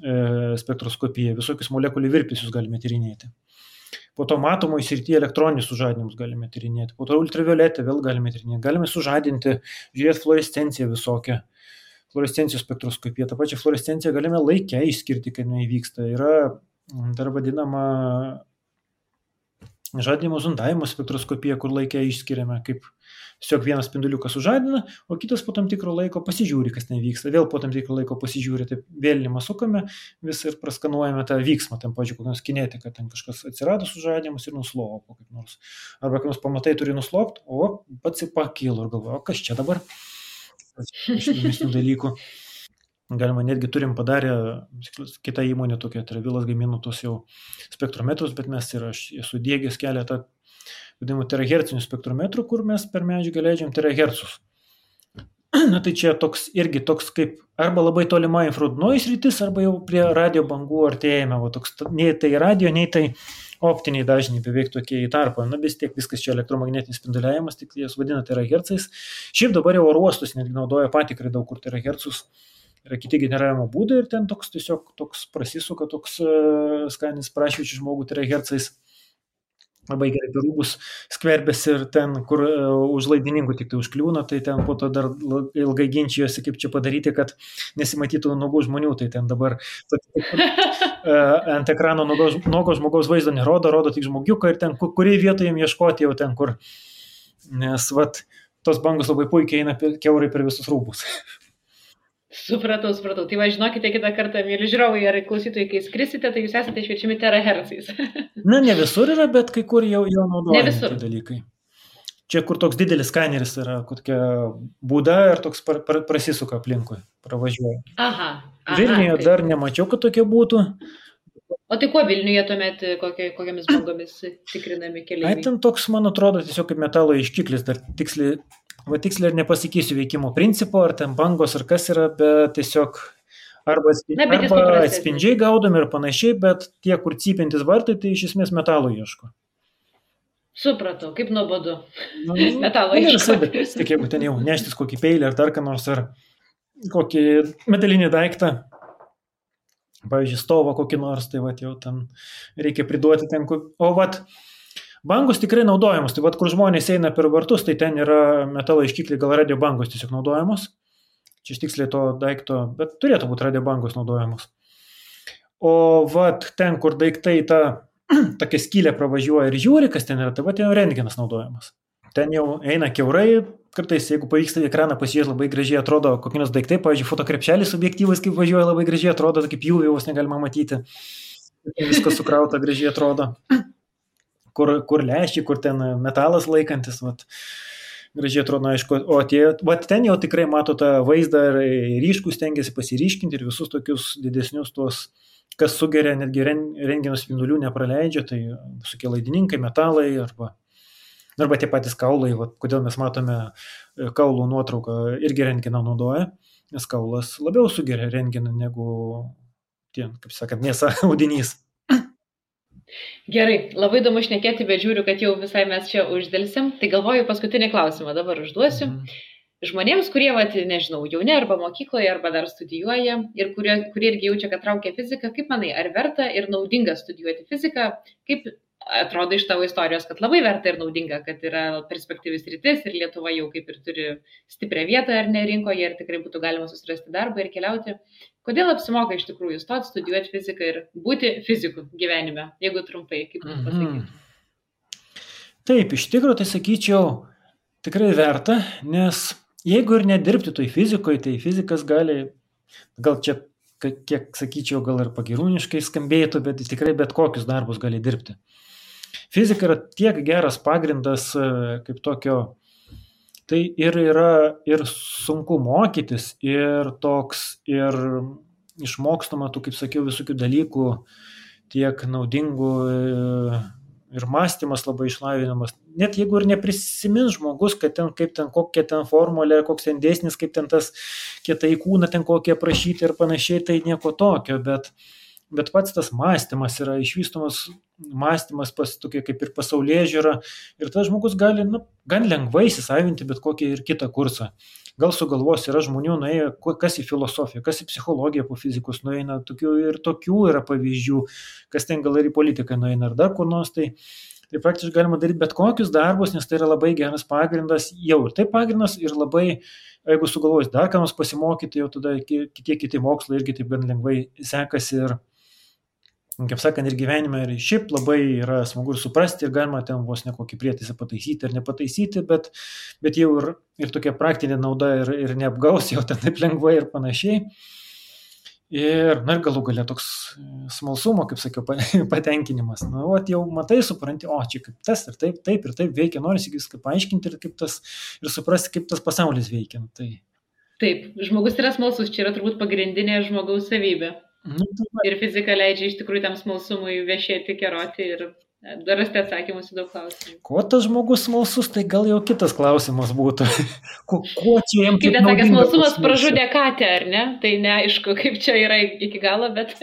spektroskopija. Visokius molekulių virpesius galime tyrinėti. Po to matomoje srityje elektroninius sužadinimus galime tyrinėti. Po to ultravioletę vėl galime tyrinėti. Galime sužadinti, žiūrėti fluorescenciją visokią. Fluorescencijos spektroskopija. Ta pačia fluorescencija galime laikę išskirti, kai jinai vyksta. Yra dar vadinama žadinimo zondavimo spektroskopija, kur laikę išskiriame, kaip tiesiog vienas spinduliukas sužadina, o kitas po tam tikro laiko pasižiūri, kas nevyksta. Vėl po tam tikro laiko pasižiūri, taip vėlinimą sukame vis ir praskanuojame tą vyksmą, ten, pavyzdžiui, kokios kinetika, ten kažkas atsirado sužadinimas ir nuslopo kaip nors. Arba kai nors pamatai turi nuslopti, o pats ir pakilo ir galvoja, o kas čia dabar? Iš įdomesnių dalykų. Galima netgi turim padarę, kita įmonė tokia, Travilas gamino tos jau spektrometrus, bet mes ir aš esu diegęs keletą vadinamų terahercinių spektrometrų, kur mes per medžiagą leidžiam terahercus. Na tai čia irgi toks kaip arba labai tolima infraraudonoji sritis, arba jau prie radio bangų artėjame. Va, toks, nei tai radio, nei tai optiniai dažniai beveik tokie į tarpą. Na vis tiek viskas čia elektromagnetinis spinduliavimas, tik jas vadina terahercais. Šiaip dabar jau oro uostus netgi naudoja patikrai daug kur terahercus. Yra kiti generavimo būdai ir ten tiesiog toks prasisuka, toks skaninis prašvičių žmogų terahercais. Labai gerai per rūbus skverbėsi ir ten, kur už laidininkų tik tai užkliūna, tai ten po to dar ilgai ginčijosi, kaip čia padaryti, kad nesimatytų nuogų žmonių. Tai ten dabar ant ekrano nuogo žmogaus vaizdo nerodo, rodo tik žmogiuką ir ten, kurį vietą jam ieškoti jau ten, kur. Nes tos bangos labai puikiai eina kiaurai per visus rūbus. Supratau. Tai va, žinokite, kitą kartą, mėly žiūrovai ar klausytojai, kai skrisite, tai jūs esate šviečiami terahercais. Na, ne visur yra, bet kai kur jau naudojami tie dalykai. Čia, kur toks didelis skaneris yra, kokia būda ir toks prasisuka aplinkui, pravažiuoja. Aha. Vilniuje dar nemačiau, kad tokie būtų. O tai kuo Vilniuje tuomet, kokiamis bangomis tikrinami keliai? Ai, ten toks, man atrodo, tiesiog kaip metalo iškiklis, dar tiksliai ir nepasakysiu veikimo principo, ar ten bangos, ar kas yra, bet tiesiog arba atspindžiai gaudomi ir panašiai, bet tie, kur cypintis vartai, tai iš esmės metalo ieško. Supratau, kaip nuobodu. Metalo ieško. Tik jeigu ten jau neštis kokį peilį ar dar ką nors, ar kokį metalinį daiktą, pavyzdžiui, stovą kokį nors, tai jau ten reikia priduoti ten, o bangos tikrai naudojamos, tai kur žmonės eina per vartus, tai ten yra metalo iškikliai, gal radio bangos tiesiog naudojamos. Čia iš tiksliai to daikto, bet turėtų būti radio bangos naudojamos. O ten, kur daiktai tokia skylė pravažiuoja ir žiūri, kas ten yra, tai ten rentgenas naudojamas. Ten jau eina kiaurai, kartais, jeigu pavyksta į ekraną pasižiūrėti, labai gražiai atrodo kokios daiktai, pavyzdžiui, fotokrepšelis objektyvais, kaip važiuoja, labai gražiai atrodo, kaip pjūvėjus negalima matyti. Viskas sukrauta, gražiai atrodo. Kur lęšiai, kur ten metalas laikantis, gražiai atrodo, aišku, o ten jau tikrai mato tą vaizdą ir ryškus stengiasi pasiryškinti ir visus tokius didesnius tuos, kas sugeria, netgi rentgeno spindulių nepraleidžia, tai visokie laidininkai, metalai arba tie patys kaulai, kodėl mes matome kaulų nuotrauką, irgi rentgeną naudoja, nes kaulas labiau sugeria rentgeną negu kaip sakant, mėsa audinys. Gerai, labai įdomu šnekėti, bet žiūriu, kad jau visai mes čia uždėlsim. Tai galvoju, paskutinį klausimą dabar užduosiu. Žmonėms, kurie, nežinau, jauni arba mokykloje, arba dar studijuoja ir kurie irgi jaučia, kad traukia fiziką, kaip manai, ar verta ir naudinga studijuoti fiziką? Kaip atrodo iš tavo istorijos, kad labai verta ir naudinga, kad yra perspektyvis rytis ir Lietuva jau kaip ir turi stiprią vietą ar ne rinkoje ir tikrai būtų galima susirasti darbą ir keliauti. Kodėl apsimoka iš tikrųjų stoti, studijuoti fiziką ir būti fiziku gyvenime, jeigu trumpai, kaip tu pasakytum? Taip, iš tikrųjų, tai sakyčiau, tikrai verta, nes jeigu ir nedirbti toj fizikoje, tai fizikas gali, gal čia kiek sakyčiau, gal ir pagirūniškai skambėtų, bet tikrai bet kokius darbus gali dirbti. Fizika yra tiek geras pagrindas kaip tokio, tai ir yra ir sunku mokytis, ir toks, ir išmokstama tų, kaip sakiau, visokių dalykų, tiek naudingų, ir mąstymas labai išlavinamas. Net jeigu ir neprisimins žmogus, kad ten, kaip ten, kokia ten formulė, koks ten dėsnis, kaip ten tas kietai kūną ten kokie aprašyti ir panašiai, tai nieko tokio, bet pats tas mąstymas yra išvystomas, mąstymas tokia kaip ir pasaulėžiūra, ir tas žmogus gali gan lengvai įsisavinti bet kokį ir kitą kursą. Gal sugalvos, yra žmonių nuėjo, kas į filosofiją, kas į psichologiją po fizikos nueina, tokių yra pavyzdžių, kas ten gal ir į politiką nueina, ar dar kur nors, tai praktiškai galima daryti bet kokius darbus, nes tai yra labai geras pagrindas, jau ir tai pagrindas, ir labai, jeigu sugalvojus dar ką nors pasimokyti, jau tada kiti mokslai irgi taip gan lengvai sekasi, ir kaip sakant, ir gyvenime, ir šiaip labai yra smagu ir suprasti, ir galima ten vos nekokį prietaisą pataisyti ar nepataisyti, bet jau ir tokia praktinė nauda ir neapgaus jau ten taip lengvai ir panašiai. Ir galų galia toks smalsumo, kaip sakiau, patenkinimas. Jau matai, supranti, čia kaip tas ir taip veikia, norisi viską paaiškinti ir ir suprasti, kaip tas pasaulis veikia. Taip, žmogus yra smalsus, čia yra turbūt pagrindinė žmogaus savybė. Ir fizika leidžia iš tikrųjų tam smalsumui viešėti, keroti ir rasti atsakymus į daug klausimų. Kuo tas žmogus smalsus, tai gal jau kitas klausimas būtų. Kuo čia jam kaip nesakė, smalsumas pražudė katę, ar ne? Tai neaišku, kaip čia yra iki galo, bet...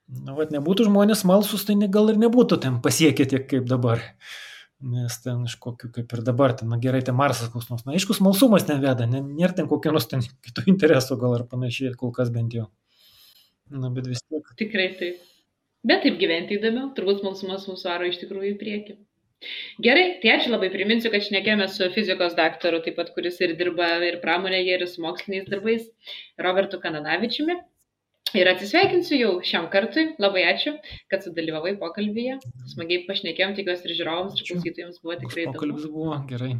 Nebūtų žmonės smalsus, tai gal ir nebūtų ten pasiekę tiek kaip dabar. Nes ten iš kokių, kaip ir dabar, ten gerai, ten Marsas koks nors. Aišku, smalsumas neveda, nėra ten kokių nors ten kitų interesų gal ar panašiai, kol kas bent jau. Bet vis tiek. Tikrai taip. Bet taip gyventi įdomiau, turbūt smalsumas mūsų varo iš tikrųjų į priekį. Gerai, tai ačiū labai, priminsiu, kad šnekėjome su fizikos daktaru, taip pat kuris ir dirba ir pramonėje, ir su moksliniais darbais, Robertu Kananavičiumi. Ir atsisveikinsiu jau šiam kartui. Labai ačiū, kad sudalyvavai pokalbyje. Smagiai pašnekėjom, tikiuosi ir žiūrovams, ir klausytojams buvo tikrai įdomu. Pokalbis buvo gerai.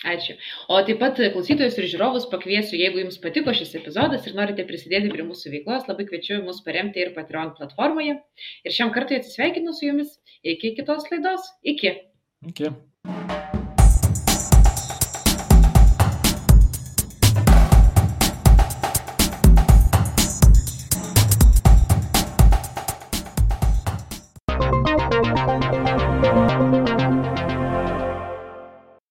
Ačiū. O taip pat klausytojus ir žiūrovus pakviesiu, jeigu jums patiko šis epizodas ir norite prisidėti prie mūsų veiklos, labai kviečiu mus paremti ir Patreon platformoje. Ir šiam kartui atsisveikinu su jumis. Iki kitos laidos. Iki. Iki.